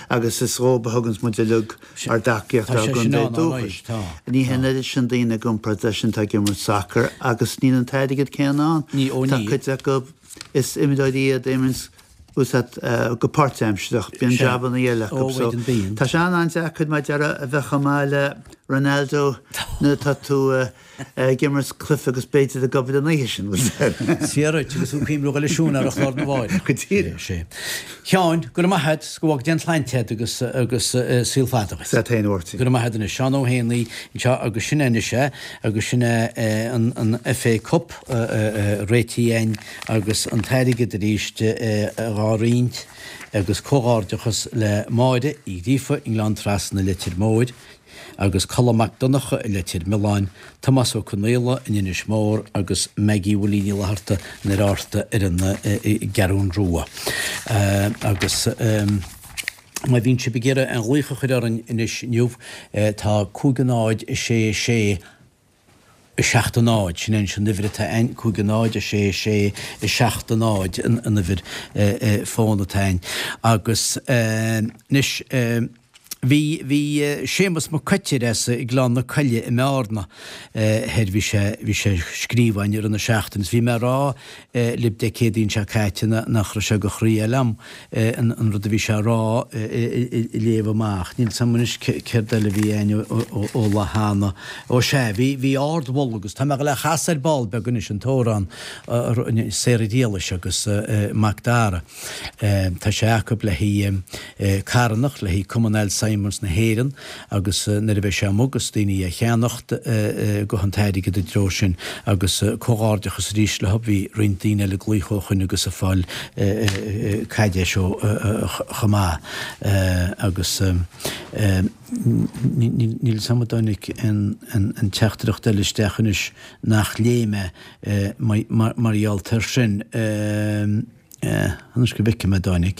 agus is dhóibh a thuganns muid uilig ár dtacaíocht ár gcontae dúchais. Ní hé an oiread sin daoine i gcomparáid leis sin atá ag imirt sacair agus níl an t-airgead céanna ann. Tá cuid acu, is imreoirí iad a imríonns. Bhfuil a fhios agat, go páirtaimsearach, bíonn jabanna eile acu so tá sé an-an-deacair mar a déarfá a bheith chomh maith le Ronaldo nuair atá tú ag imirt cluife agus b'fhéidir ag obair an oíche sin, bhfuil a fhios agat. Is fíor duit, agus tú ag cuimhniú dhul ag siúl ar an chlár na mháireach. Go díreach. Sé. Sheáin, go raibh maith agat, go bhfága Dia an tsláinte agat agus agus saol fada duit. Sea, féin a Mháirtín. Go raibh maith agat anois. Seán Ó hÉanaí anseo agus sin é anois é, agus sin é an an FA Cup réitithe againn agus an t-airgead arís dhá roinnt agus comhghairdeachas le Máire Uí Ghríofa i nGleann Trasna Leitir Móir agus Colm Mac Donncha i Leitir Mealláin, Tomás Ó Conaola in Inis Mór agus Maggie Willie Ní Fhlatharta in Oir Fhátharta ar an gCeathrún Rua. Agus má bhíonn sibh ag iarraidh aon ghlaoch a chur orainn anois inniu tá 5 0 6 6 7 0, sin é anois an uimhir atá a'inn, 5 0 6 6 7 0 an uimhir fóin atá a'inn. Agus anois bhí, bhí Séamus Mac Coitir as Gleann na Coille i mBearna thoir, bhí sé, bhí sé ag scríobh a'inn i rith na seachtaine is bhí mé a rá libh Dé Céadaoin seo caite nach raibh sé go chroí liom an rud a bhí sé a rá a léamh amach. Níl 's a'm anois céard eile a bhí a'inn ó lá cheana. Ó sea, bhí, bhí ardmholadh agus tá mé ag dul é a chasadh ar ball beag anois, an t-amhrán Sarah Ghriallais agus Mac Dara. Tá sé acu le haghaidh carthanacht, le haghaidh Cumann Alzheimer's na hÉireann agus nuair a bheidh sé amuigh agus daoine á cheannacht gabhfaidh an t-airgead i dtreo sin agus comhghairdeachas arís leo. Bhí roinnt daoine eile ag glaoch ó shoin agus ag fáil caidéis ó chomh maith agus níl 'fhios a'm an dtáinig aon teachtaireacht eile isteach anois nach léigh mé mar gheall air sin. Anois go bhfeicfidh mé an dtáinig.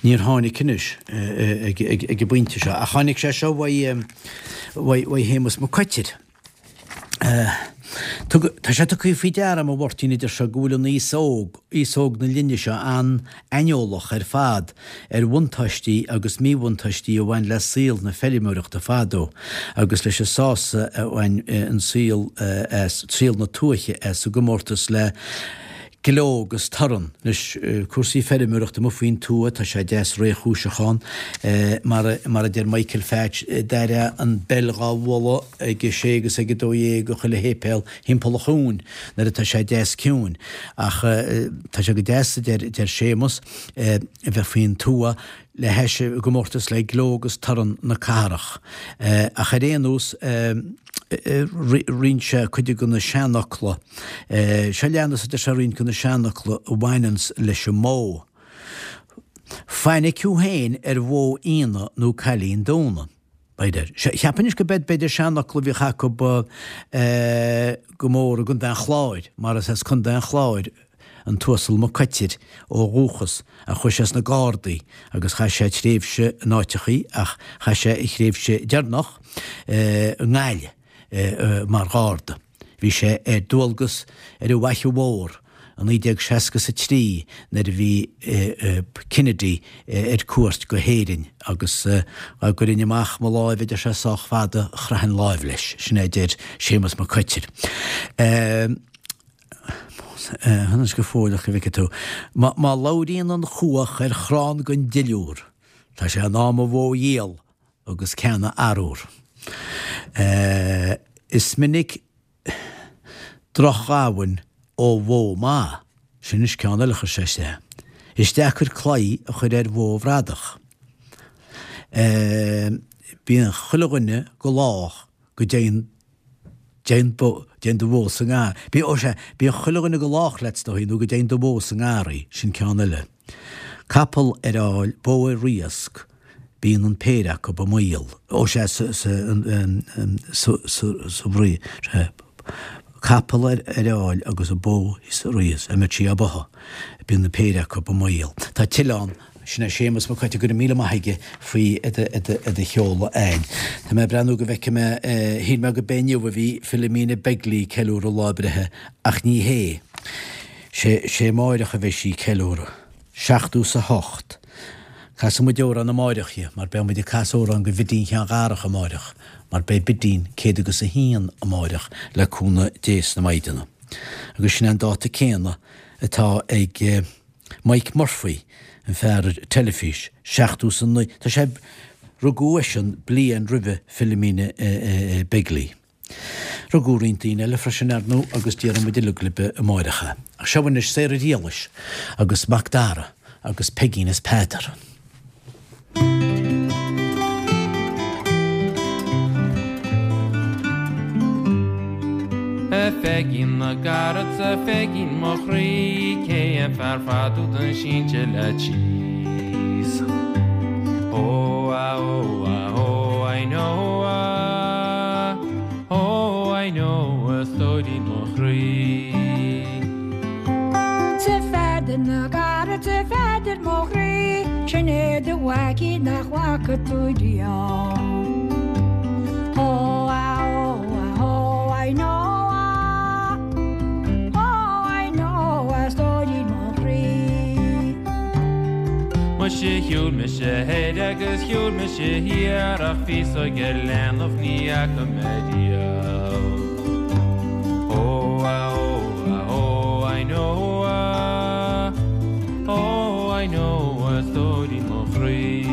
Níor tháinig anois ag an bpointe seo, ach tháinig sé seo uaidh Shéamus Mac Coitir. Tá sé tugtha faoi deara agam, a Mháirtín, a deir sé, go bhfuil an aos óg, aos óg na linne seo an-aineolach ar fad ar bhuntáistí agus míbhuntáistí a bhain le saol na feirmeoireachta fadó agus leis an sásamh a bhain an saol as, saol na tuaithe as i gcomórtas le gleo agus torann. Anois, cúrsaí feirmeoireachta amuigh faoin tuath, tá sé deas réchúiseach ann. Mar mar a deir Michael Phatch, d'airfeá an beil dhá bhualadh ag a sé agus ag a dó dhéag i chuile shéipéal thimpeall an chuain nuair atá sé deas ciúin. Ach tá sé go deas, a deir Séamus, a bheith faoin tuath le hais i gcomórtas le gleo agus torann na cathrach. Ach ar aon nós, roinn sé cuid de na seanfhocla. Seo leanas, a deir sé, roinnt de na seanfhocla a bhaineanns leis an mbó. Fainic thú féin ar bhó fhíona nó cailín dúna. B'fhéidir. Cheapfainn anois go b'fhéidir b'fhéidir seanfhocal a bhíodh acu go mór i gContae an Chláir, mar is as Contae an Chláir an tUasal Mac Coitir ó dhúchas ach chuaigh sé sna Gardaí agus chaith sé tréimhse in áiteachaí ach chaith sé a thréimhse deireanach i nGaillimh mar Gharda. Bhí sé ar dualgas ar an bhFaiche Mhór i 1963 nuair a bhí Kennedy ar cuairt go hÉirinn agus dá gcuirfinn amach mo láimh, a deir sé, sách fada, chroithfinn láimh leis. Sin é a deir Séamus Mac Coitir. Anois go fóilleach go bhfeicfidh tú. Má labhraíonn an chuach ar chrann den duilliúr, tá sé in am a bhó a dhíol agus ceann a athrú. Is minic drochghamhain ó bhó maith. Sin anois ceann eile a chuir sé isteach. Is deacair claí a chur ar bhó bhradach. Bíonn chuile dhuine go lách go dtéann dtéann dtéann do bhó sa ngar. Bí, ó sea, bíonn chuile dhuine go lách leat, is dóigh, nó go dtéann do bhó sa ngarraí, sin ceann eile. Capall ar fháil, bó ar riasc, bíonn an péire acu i mbaol. Ó sea, sa, sa, sa, sa, sa bhrí, sea, capall ar ar fháil agus an bó sa riasc, a mbeadh sí á báthadh, bíonn an péire acu i mbaol. Tá tuilleadh ann. Sin é Séamus Mac Coitir, go raibh míle maith aige faoi do sheoladh a'inn. Tá mé ag breathnú go bhfeicfidh mé, shíl mé go b'é inniu a bhí Philomena Begley ag ceiliúradh lá a breithe ach ní hé. Sé, sé amáireach a bheidh sí ag ceiliúradh. 78. Casfaidh muid amhrán amáireach di mar beidh muid ag casadh amhrán go Bhidín Sheáin Dharach amáireach mar beidh Bidín 101 amáireach le cúnamh Dé is na Maighdeana. Agus sin é an dáta céanna atá ag Mike Murphy, an fear ar teilifís, seachtó is a naoi, tá sé, rugadh eisean bliain roimhe Philomena Begley. Rugadh roinnt daoine eile freisin, ar ndóigh, agus déarfaidh muid uilig libh amáireach é. Ach seo anois Sarah Riallais agus Mac Dara agus Peigín is Peadar. A Pheigín na gcarad 's a Pheigín mo chroí cé an fear fada údan sínte leat síos Ó a ó a ó I know a ó I know a stóirín mo chroí. 'S a Pheadair na gcarad 's a Pheadair mo chroí, sin é do mhaicín nach bhfaca tú riamh. Ó a ó a ó I know a ó I know a stóirín mo chroí. Muise shiúil mise thoir agus shiúil mise thiar ach féasóg ar leanbh ní fhaca mé riamh. Ó a ó a ó I know a ó I know a stóirín mo chroí.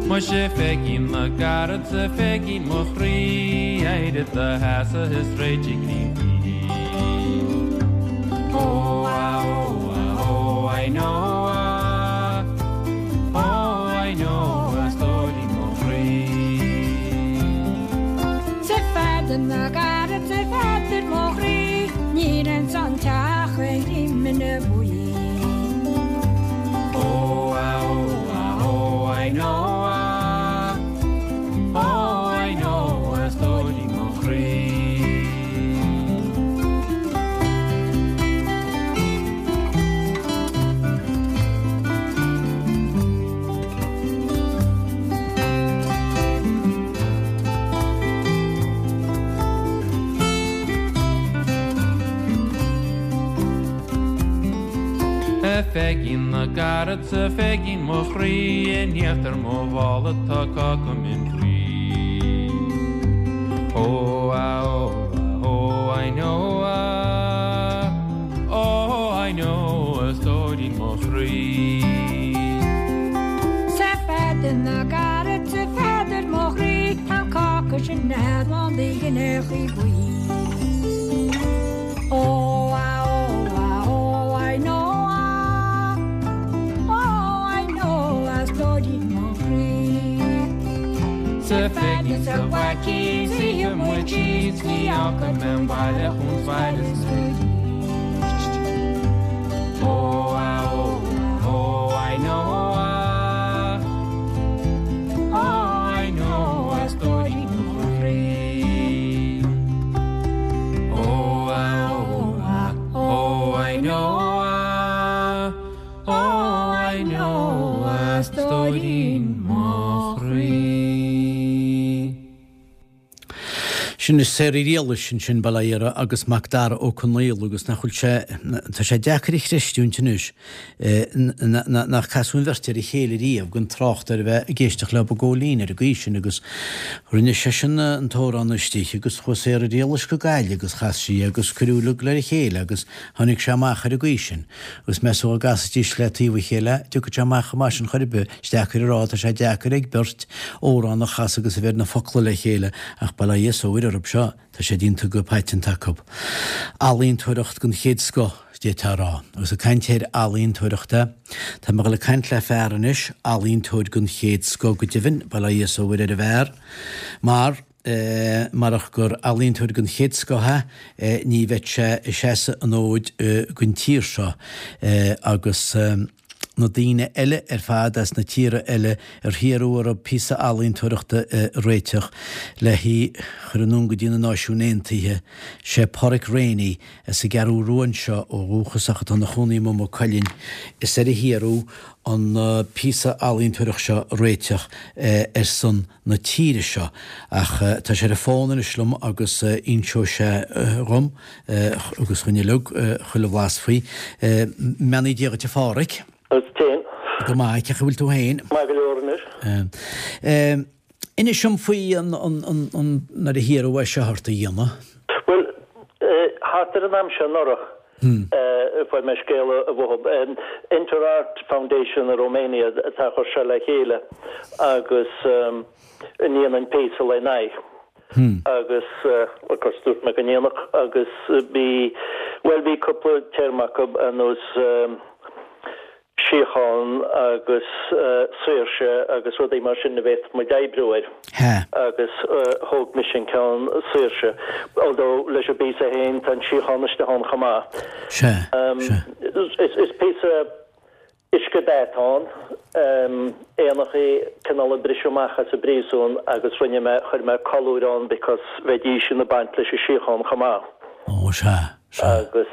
Muise a Pheigín na gcarad 's a Pheigín mo chroí éirigh i do sheasamh is réitigh linn bídh. Ó a ó a ó I know a ó I know a stóirín mo chroí. 'S a Pheadair na gcarad 's a Pheadair mo chroí, níl ins an teach ach greimine buí. Ó a ó a ó I know a ó I know a stóirín mo chroí. A Pheigín na gcarad 's a Pheigín mo chroí in íochtar mo mhála tá cáca min buí. Ó a ó a ó I know a ó I know a stóirín mo chroí. 'S a Pheadair na gcarad 's a Pheadair mo chroí tá an cáca sin lán de ghineachaí buí. Ó a ó a ó I know a ó I know a stóirín mo chroí. 'S a Pheigín 's a mhaicín 's ith muid síos ní fhágfaidh mé an baile chun bhaile 's arís. Ó a ó a ó I know a ó I know a stóirín mo chroí. Ó a ó a ó I know a ó I know a stóirín mo chroí. Sin Sarah Riallais ansin, bail ó Dhia uirthi, agus Mac Dara Ó Conaola agus nach bhfuil sé, tá sé deacair a chreistiúint anois nach casadh an bheirt ar a chéile riamh gan trácht ar a bheith ag éisteacht leo i gcóilín ar an gcaoi sin agus rinne seisean an t-amhrán istigh agus chuaigh Sarah Riallais go Gaillimh agus chas sí agus cuireadh uilig le chéile agus tháinig sé amach ar an gcaoi sin agus meas tú dá gcasfaidís le taobh a chéile dtiocfadh sé amach chomh maith sin chor ar bith. Is deacair a rá, tá sé deacair ag beirt amhrán a chasadh agus a bheith ar na focla le chéile ach bail ó Dhia is ó Mhuire orthu seo, tá sé déanta go paiteanta acu. Ealaíontóireacht den chéad scoth, d'fhéadfá a rá. Agus ag caint ar ealaíontóireacht, tá mé ag dul ag caint le fear anois, ealaíontóir den chéad scoth go deimhin, bail ó Dhia is ó Mhuire ar an bhfear, mar, marach gur ealaíontóir den chéad scoth é, ní bheadh sé ag seasamh an fhóid don tír seo agus na daoine eile ar fad as na tíortha eile ar hiarradh orthu píosa ealaíontóireachta a réiteach le hí a chur anonn go dtí na Náisiúin Aontaithe. Sé Páraic Rainey, as an gCeathrú Rua anseo ó dhúchas ach atá ina chónaí i Maigh Cuilinn, is air a hiarradh an píosa ealaíontóireachta seo a réiteach ar son na tíre seo. Ach tá sé ar an bhfón anois liom agus inseoidh sé dhom agus dhuinn uilig chuile bhlas faoi. I mbeannaí Dé dhuit a Pháraic. Duit féin. Go maith, cén chaoi a bhfuil tú féin? Maith go leor anois. Inis dom faoi an, an, an, nuair a hiarradh é seo ort a dhéanamh. Bhuel, Thart ar an am seo anuraidh a fuair mé scéala uathu. Inter Art Foundation i Romania atá a chur seo le chéile agus a ndéanann píosa lena aghaidh. Agus of course dúirt mé go ndéanfadh agus bhí, bhuel bhí cúpla téarma acu ar nós síocháin agus saoirse agus rudaí mar sin a bhféadfadh muid oibriú air. Agus thóg mise an ceann saoirse, although leis an bpíosa féin tá an síocháin istigh ann chomh maith. Is píosa uiscedhath atá ann, éanachaí cineál ag briseadh amach as an bpríosún agus rinne mé, chuir mé colúir ann because bheidís ina baint leis an síocháin chomh maith. Ó, sea. Agus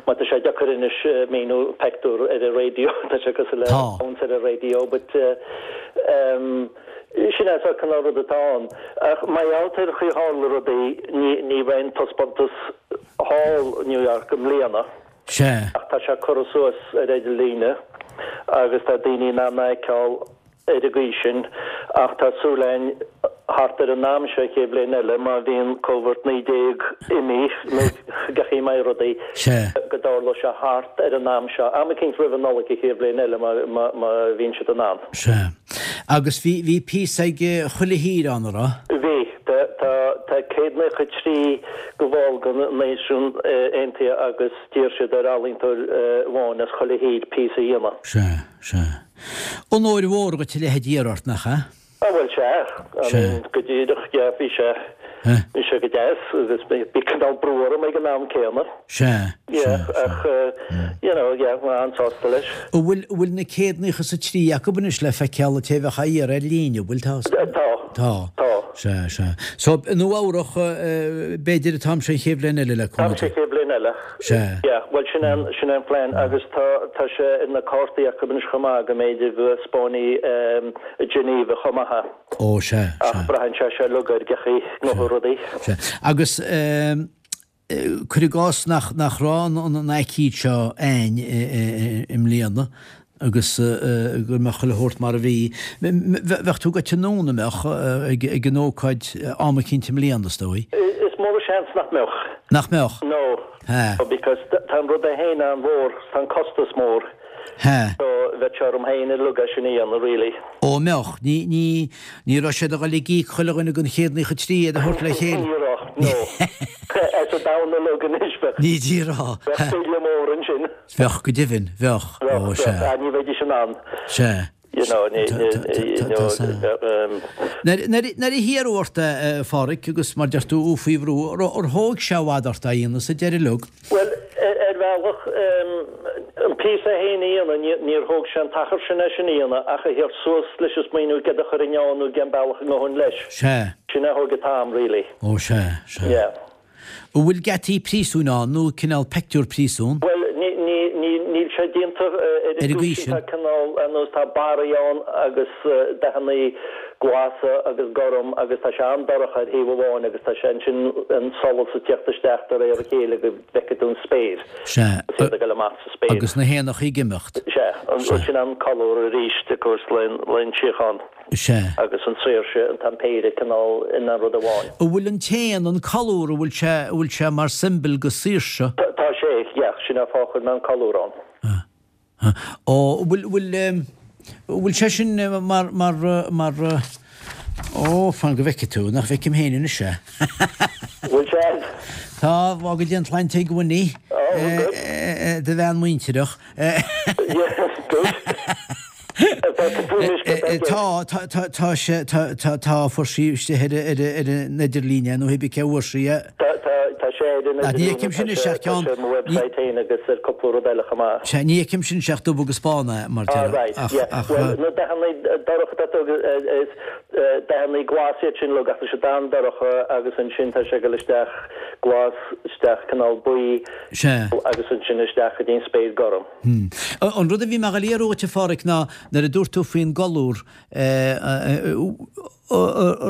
má tá sé deacair anois míniú peictiúr ar an raidió, tá sé cosúil le caint ar an raidió, but sin é an cineál rud atá ann. Ach mar gheall ar chaoi a tharla rudaí, ní bheidh an taispeántas thall i New York i mbliana, ach tá sé curtha suas ar idirlíne agus tá daoine in ann é a fheiceáil. ar an gcaoi sin, ach tá súil againn thart ar an am seo an chéad bhliain eile, má bhíonn Covid 19 imithe, nó cén chaoi a mbeidh rudaí, go dtarlóidh sé thart ar an am seo, am eicínt roimh an Nollaig an chéad bhliain eile, má bhíonn siad in ann. Sea. Agus bhí, bhí píosa ag chuile thír ann, a raibh? Bhí. Tá, tá, tá 193 de bhall de na Náisiúin Aontaithe agus d'iarr siad ar ealaíontóir amháin as chuile thír píosa a dhéanamh. Sea, sea. Onóir mhór dhuit a leithéid a iarraidh ort, nach ea? Ah bhuel sea, I mean go díreach, yeah, bhí sé, bhí sé go deas agus bhí cineál brú orm ag an am céanna. Sea, sea, ach you know, yeah, mé an-sásta leis. An bhfuil, an bhfuil na 193 acu anois le feiceáil an té a bheadh á iarraidh ar líne, an bhfuil? Tá. Tá. Tá. Sea, sea. So, i Nua Eabhrach, b'fhéidir an t-am seo an chéad bhliain eile le cúnamh Dé. An t-am seo an chéad bhliain eile. Sea. Yeah, bhuel sin é an, sin é an plean agus tá, tá sé ar na cártaí acu anois chomh maith go mb'fhéidir go dtaispeánfaí i Geneva chomh maith é. Ó, sea, sea. Ach braitheann sé seo uilig ar cén chaoi a ngabhfaidh rudaí. Sea. Agus cuir i gcás nach, nach raibh an, an aicíd seo a'ainn i mbliana agus go mbeadh chuile shórt mar a bhí, bheadh tú goite anonn, an mbeadh, ag an ócáid am eicínt i mbliana, is dóigh? Is mór an seans nach mbeadh. Nach mbeadh? No. Hea. Because tá an rud é féin an-mhór, tá an costas mór. Hea. So bheadh sé orm féin uilig é sin a dhéanamh really. Ó, an mbeadh? Ní, ní, ní raibh siad a dhul ag íoc chuile dhuine den 193 iad a thabhairt le chéile. Ní raibh, no. As an domhan uilig anois bheadh. Ní díreach. Bheadh bille mór ansin. Bheadh, go deimhin, bheadh. Ó, sea. Bheadh, ní bheidís in ann. Sea. You know, ní, ní, you know, Nuair a hiarradh ort é, a Pháraic, agus mar deir tú, faoi bhrú, ar thóg sé i bhfad ort é a dhéanamh sa deireadh uilig? Bhuel, ar bhealach, an píosa é féin a dhéanamh, níor thóg sé an t-achar sin é sin a dhéanamh, ach a theacht suas leis an smaoineamh céard a chuirfinn ann nó cén bealach a ngabhfainn leis. Sea. Sin a thóg an t-am, really. Ó, sea, sea. Yeah. An bhfuil geataí príosúin ann nó cineál peictiúr príosún? Bhuel, níl sé déanta ar an gcaoi sin. Tá cineál, ar nós, tá barraí ann agus dathannaí glasa agus gorm agus tá sé an-dorcha ar thaobh amháin agus tá sé ansin an solas ag teacht isteach de réir a chéile go bhfeicfidh tú an spéir. Sea. Agus iad ag dul amach sa spéir. Agus na héanachaí ag imeacht. Sea. Sin an colúr arís, of course, le an tsíocháin. Sea. Agus an tsaoirse, an t-am péire cineál ina rud amháin. An bhfuil an t-éan, an colúr, an bhfuil sé, an bhfuil sé mar symbol go saoirse? Tá sé, yeah, sin an fáth a chuir mé an colúr ann. Ó, an bhfuil, an bhfuil, an bhfuil sé sin mar, mar, mar, ó, fan go bhfeicfidh tú, nach bhfeicim féin anois é. Bhfuil sé? Tá, fág go dté an tsláinte ag Winnie, do bhean muintireach. Yes, good. Tá, tá, tá, tá sé, tá, tá, tá, fuair sí istigh ar, ar, ar an idirlíon é nó hé bí cé bhfuair sí é. Tá, tá, tá sé ar an Ní fheicim sin idirlíon, isteach tá ceann, sé ar mo website féin agus ar cúpla rud eile chomh maith. Sea, ní fheicim sin isteach dubh agus bán é, mar Ah, déarfá, right, ach, yeah. ach. Bhuel, na dathanna dorcha atá tú, is dathanna glas iad sin uilig ach tá siad an-dorcha agus ansin tá sé ag dul isteach glas, isteach cineál buí Sea. agus ansin isteach go dtí an spéir gorm. An rud a bhí mé a dhul a iarraidh uait, a Pháraic, ná nuair a dúirt tú faoin gcolúr, an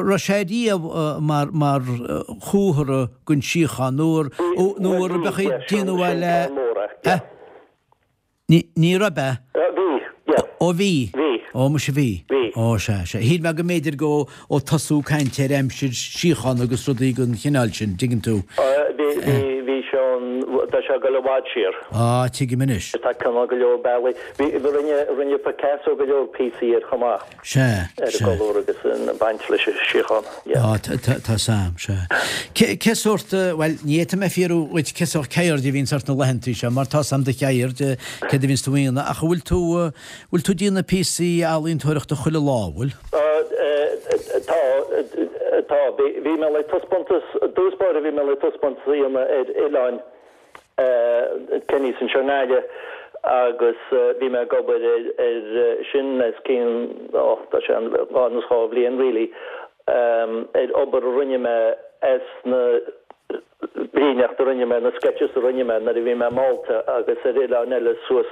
raibh sé riamh mar mar chomhartha den síocháin nó nó ar bheadh ag déanamh é le eh? Ní raibh, eh? Bhí, yeah. Ó bhí? Bhí. Ó muise bhí. Bhí. Ó sea, sea. Shíl mé go mb'fhéidir go ó tosú caint ar aimsir síochána agus rudaí den chineál sin, dtuigeann tú. Bhí, bhí, bhí sé ann. bhfad siar. Á, tuigim anois. Tá cineál go leor bealaí. Bhí, rinne, rinne Picasso go leor píosaí air chomh maith. Sea, Ar an sea. gcolúr agus an baint leis an síocháin. Yeah. Á, tá, tá, tá's a'm, sea. Cé, cé sórt, bhuel, ní fhéadfaidh mé fiafraí dhuit cé sórt ceird a bhíonns ort na laethantaí seo, mar tá's a'm do cheird, céard a bhíonns tú a dhéanamh, ach an bhfuil tú, bhfuil tú ag déanamh píosaí ealaíontóireachta chuile lá, an bhfuil? Tá, tá. Bhí, bhí mé le taispeántas, i dtús báire bhí mé le taispeántas a dhéanamh ar oileáin Cenny's anseo i nGaillimh agus bhí mé ag obair ar, ar sin os cionn, ó, tá sé an, anuas 2 bhliain really, ar obair a rinne mé as na líníocht a rinne mé, na sketches a rinne mé nuair a bhí mé i Málta agus ar oileáin eile suas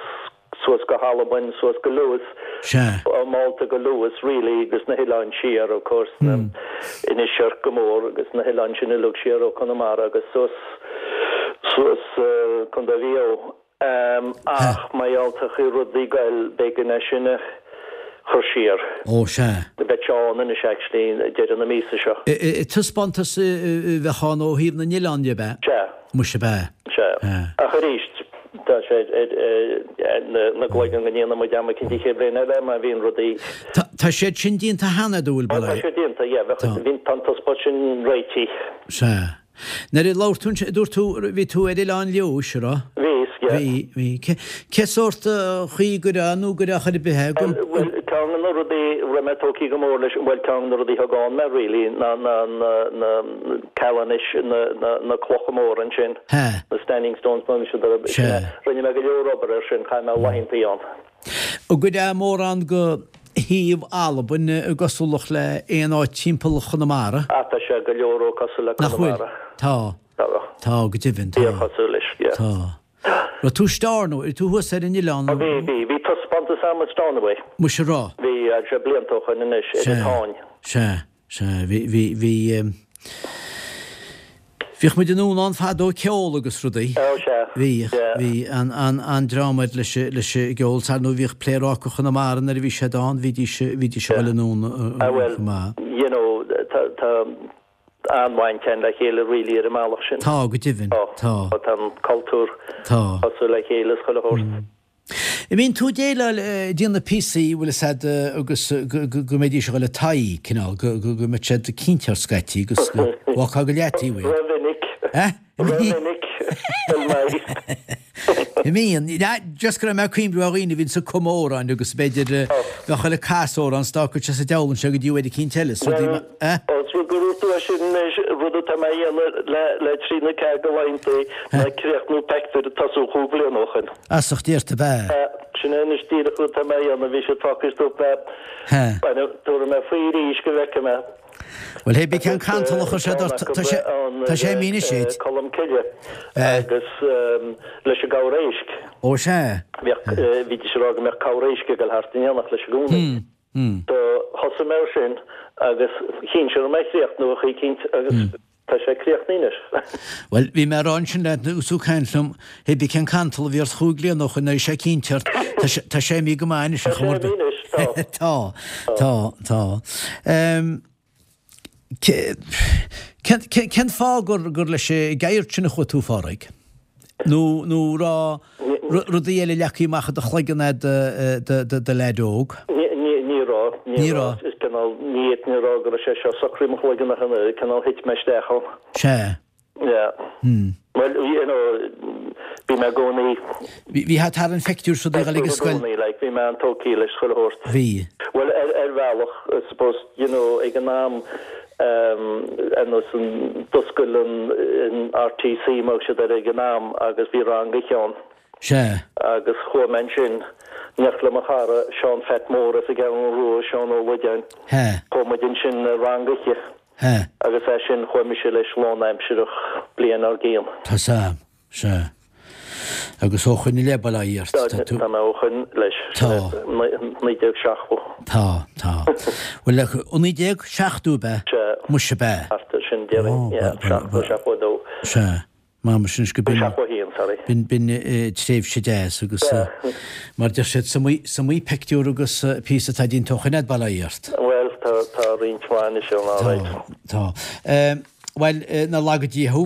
suas go hAlbain, suas go Lewis, Sea. ó Málta go Lewis really agus na hoileáin siar of course, na Inis Oirc go mór agus na hoileáin sin uilig siar ó Conamara agus suas suas Contae Mhaigh Eo. Ach mar gheall ar chaoi rudaí ag goil b'éigean é sin a chur siar. Ó sea. Beidh sé ann anois actually deireadh na míosa seo. Taispeántas a bheadh ann ó thaobh na n-oileán de, ab ea? Sea. Muise ab ea? Sea. Ach arís, tá sé ar na gcloigeann go ndéanfaidh muid am eicínt an chéad bhliain eile má bhíonn rudaí. Tá siad sin déanta cheana, an bhfuil, Tá sé déanta, yeah. Bheadh, bhí, tá an taispeántas sin réitithe. Sea. Nuair a labhair tú ansin, dúirt tú, bhí tú ar Oileán Leodhais, an raibh? Bhíos, yeah. Bhí, bhí. Cé, cé sórt chaoi go raibh nó go raibh chor ar bith é? Bhuel, bhuel, ceann de na rudaí a raibh mé tógtha go mór leis, bhuel, ceann de na rudaí a thug ann mé really ná na, na, na Callanish, na, na, na clocha móra ansin. He. Na Standing Stones, mar sin de. Sea. Rinne mé go leor obair air sin, chaith mé laethantaí ann. An gcuirfeá mórán go shuíomh Albain i gcosúlacht le aon áit timpeall Chonamara? Ah, tá sé go leor cosúil le Nach bhfuil? Conamara. Tá. Tá. Tá, go deimhin, tá. Fíorchosúil leis, yeah. Tá. Raibh tú Stornoway, raibh tú thuas ar an oileán? Ó bhí, bhí. Bhí taispeántas a'm i Stornoway. Muise raibh? Bhí, tá sé blianta ó shoin anois, ar an Sea, Táin. sea. Sea, bhí, bhí, bhí, bhíodh muid anonn ann fadó ag ceol agus rudaí. Ó, sea. Bhíodh, Yeah. bhí an, an, an-dream air leis, leis an gceol. Ar ndóigh bhíodh Pléaráca Chonamara nuair a bhí siad ann, bhídís, bhídís ag dul anonn Ah, well, chomh maith. you know, tá, tá an-bhaint againn le chéile really ar an mbealach sin. Tá, go deimhin, tá. Tá an cultúr Tá. cosúil le chéile is chuile shórt. An mbíonn tú ag déileáil, ag déanamh píosaí, bhfuil fhios a'd, agus go mbeidís ag dul i t'aghaidh, cineál, go mbeadh siad cinnte ort scaití agus go bhfágfá go leataobh iad. Ró-mhinic. Eh? Ró-mhinic. An mbíonn. Just go raibh mé ag cuimhniú ar dhaoine a bhíonns ag cumadh amhráin agus b'fhéidir bheadh chuile casadh amhrán 's d'fhágfadh sé sa diabhal anseo go dtí uair eicínt eile, is rudaí mar, eh? Ós rud gur dhúirt tú é sin anois, rud atá mé a dhéanamh le trí nó ceathair de laethantaí ná críochnú peictiúr a tosaíodh chúig bhliana ó shoin. As ucht ort ab ea? Sin é anois díreach rud atá mé a dhéanamh, bhí siad fágtha stop mé, tabharfaidh mé faoi arís go bhfeicfidh mé. Bhuel, hé bí cén cantal a chuir sé ort, tá sé, tá sé imithe anois duit. Colm Cille agus leis an gcabhair éisc. Ó sea. Bhíodh, bhídís ag rá go mbeadh cabhair éisc ag dul thart in éineacht leis i gcónaí. Do thosaigh mé air sin agus chinn sé raibh mé a chríochnú a choícint agus tá sé críochnaithe anois. Bhuel, bhí mé a rá ansin leat agus tú ag caint liom, hé bí cén cantal a bhí ort chúig bliana ó shoin, bhí sé cinnte ort, tá sé, tá sé imithe go maith anois a Tá sé chomharba. imithe anois, tá. Tá, tá, tá. Ehm, cén, cén, cén fáth gur, gur leis an gceird sin a chuaigh tú, a Phádraig? Nó, nó raibh rudaí eile leagtha amach i do chloigeann a'd do do leaid óg? Ní, ní, ní raibh, ní Ní raibh. raibh. Is cineál, ní fhéadfainn a rá go raibh sé seo socraithe i mo chloigeann ach an oiread, cineál thit mé isteach ann. Sea. Yeah. Hmm. Bhuel, you know, bhí mé i gcónaí. Bhí, bhí thart ar an phictiúr seo ag dul ag an I scoil. gcónaí, like, bhí mé an-tógtha leis chuile shórt. Bhí. Bhuel, ar, ar bhealach, I suppose, you know, ag an am, um, ar nós an, d'oscail an, an RTC, mar a thug siad air ag an am, agus bhí rang oíche ann. Sea. Agus chuaigh mé ansin, in éineacht le mo chara, Seán Pheait Mór as an gCeathrú Rua, Seán Ó Loideáin. He. Chuaigh muid ansin ar rang oíche. He. Agus as sin chuaigh mise leis lánaimsireach bliain dár gcionn. Tá 's a'm. Sea. Agus ó shoin i leith, bail ó Dhia ort, tá tú. Tá mé ó shoin leis. Tá. 1970. Tá, tá. Bhuel, ó 1970 ab ea? Sea. Muise ab ea? Thart ar sin, déarfainn. Yeah, 70, 72. Sea. M'anam sin go b'in. 71, sorry. B'in, b'in tréimhse deas agus mar deir siad, is iomaí, is iomaí peictiúr agus píosa atá déanta ó shoin a'd, bail ó Dhia ort. Bhuel, tá, tá roinnt mhaith anois ann, alright. Tá, tá. Bhuel, nár laga Dia thú,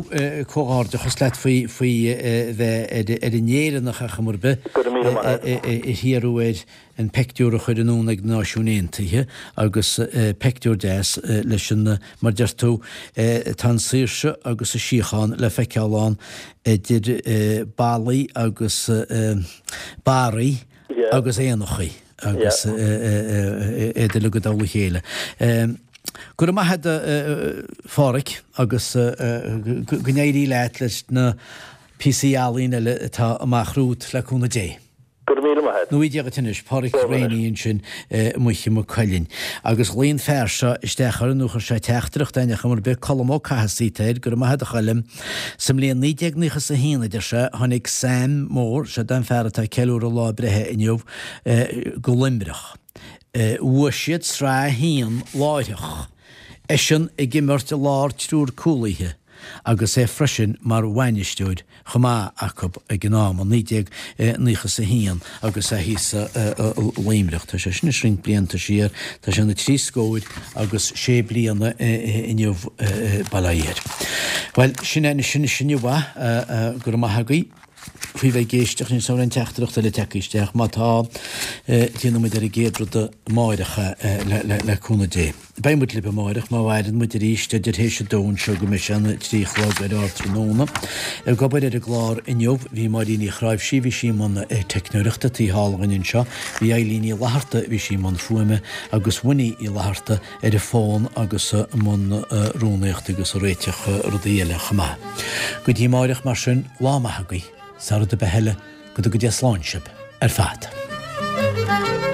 comhghairdeachas leat faoi faoi bheith ar an Éireannach ar chuma ar bith Go raibh míle maith agat. a hiarradh air an peictiúr a chur anonn ag na Náisiúin Aontaithe agus peictiúr deas leis an, mar deir tú, tá an saoirse agus an síochán le feiceáil ann idir ballaí agus barraí agus éanachaí agus iad uilig i dtoll a chéile. Go raibh maith agat a Pháraic agus go n-éirí leat leis na píosaí ealaíne eile atá amach romhat le cúnamh Dé. Go raibh míle maith agat. Nó Dia dhuit anois, Páraic Rainey ansin i Maigh Cuilinn. Agus ghlaoigh an fear seo isteach orainn, nó chuir sé teachtaireacht againn ar chuma ar bith, Colm Ó Cathasaigh atá air, go raibh maith agat a Choilm. Sa mbliain 1991, a deir sé, tháinig Sam Mór, seo é an fear atá ag ceiliúradh a lá breithe inniu, go Luimneach. Bhuaigh siad Sraith 1 láithreach, eisean ag imirt i lár triúr cúlaithe. agus é freisin mar bhainisteoir chomh maith acu ag an am, i 1991 agus é thíos i Luimneach. Tá sé sin anois roinnt blianta siar, tá sé ina thrí scóir agus sé bliana inniu, bail ó Dhia air. Bhuel, sin é sin inniu é, go raibh maith agaibh faoi bheith ag éisteacht, níl 's agam an raibh aon teachtaireacht eile tagtha isteach, má tá, déanfaidh muid ar an gcéad rud amáireach é le cúnamh Dé. Beidh muid libh amáireach má mhaireann muid arís idir théis a dó anseo go mbeidh sé ina 3 a chlog ar ardtráthnóna. Ag obair ar an gclár inniu bhí Máirín Uí Chráimhsí, bhí sí i mbun teicneoireachta taobh thall dhúinn anseo, bhí Eilín Ní Fhlatharta, bhí sí i mbun fuaime, agus Winnie Uí Fhlatharta ar an bhfón agus i mbun rúnaíochta agus ag réiteach rudaí eile chomh maith. Go dtí amáireach mar sin, lá maith agaibh, sara rud ar bith eile, go dtuga Dia slán sibh ar fad.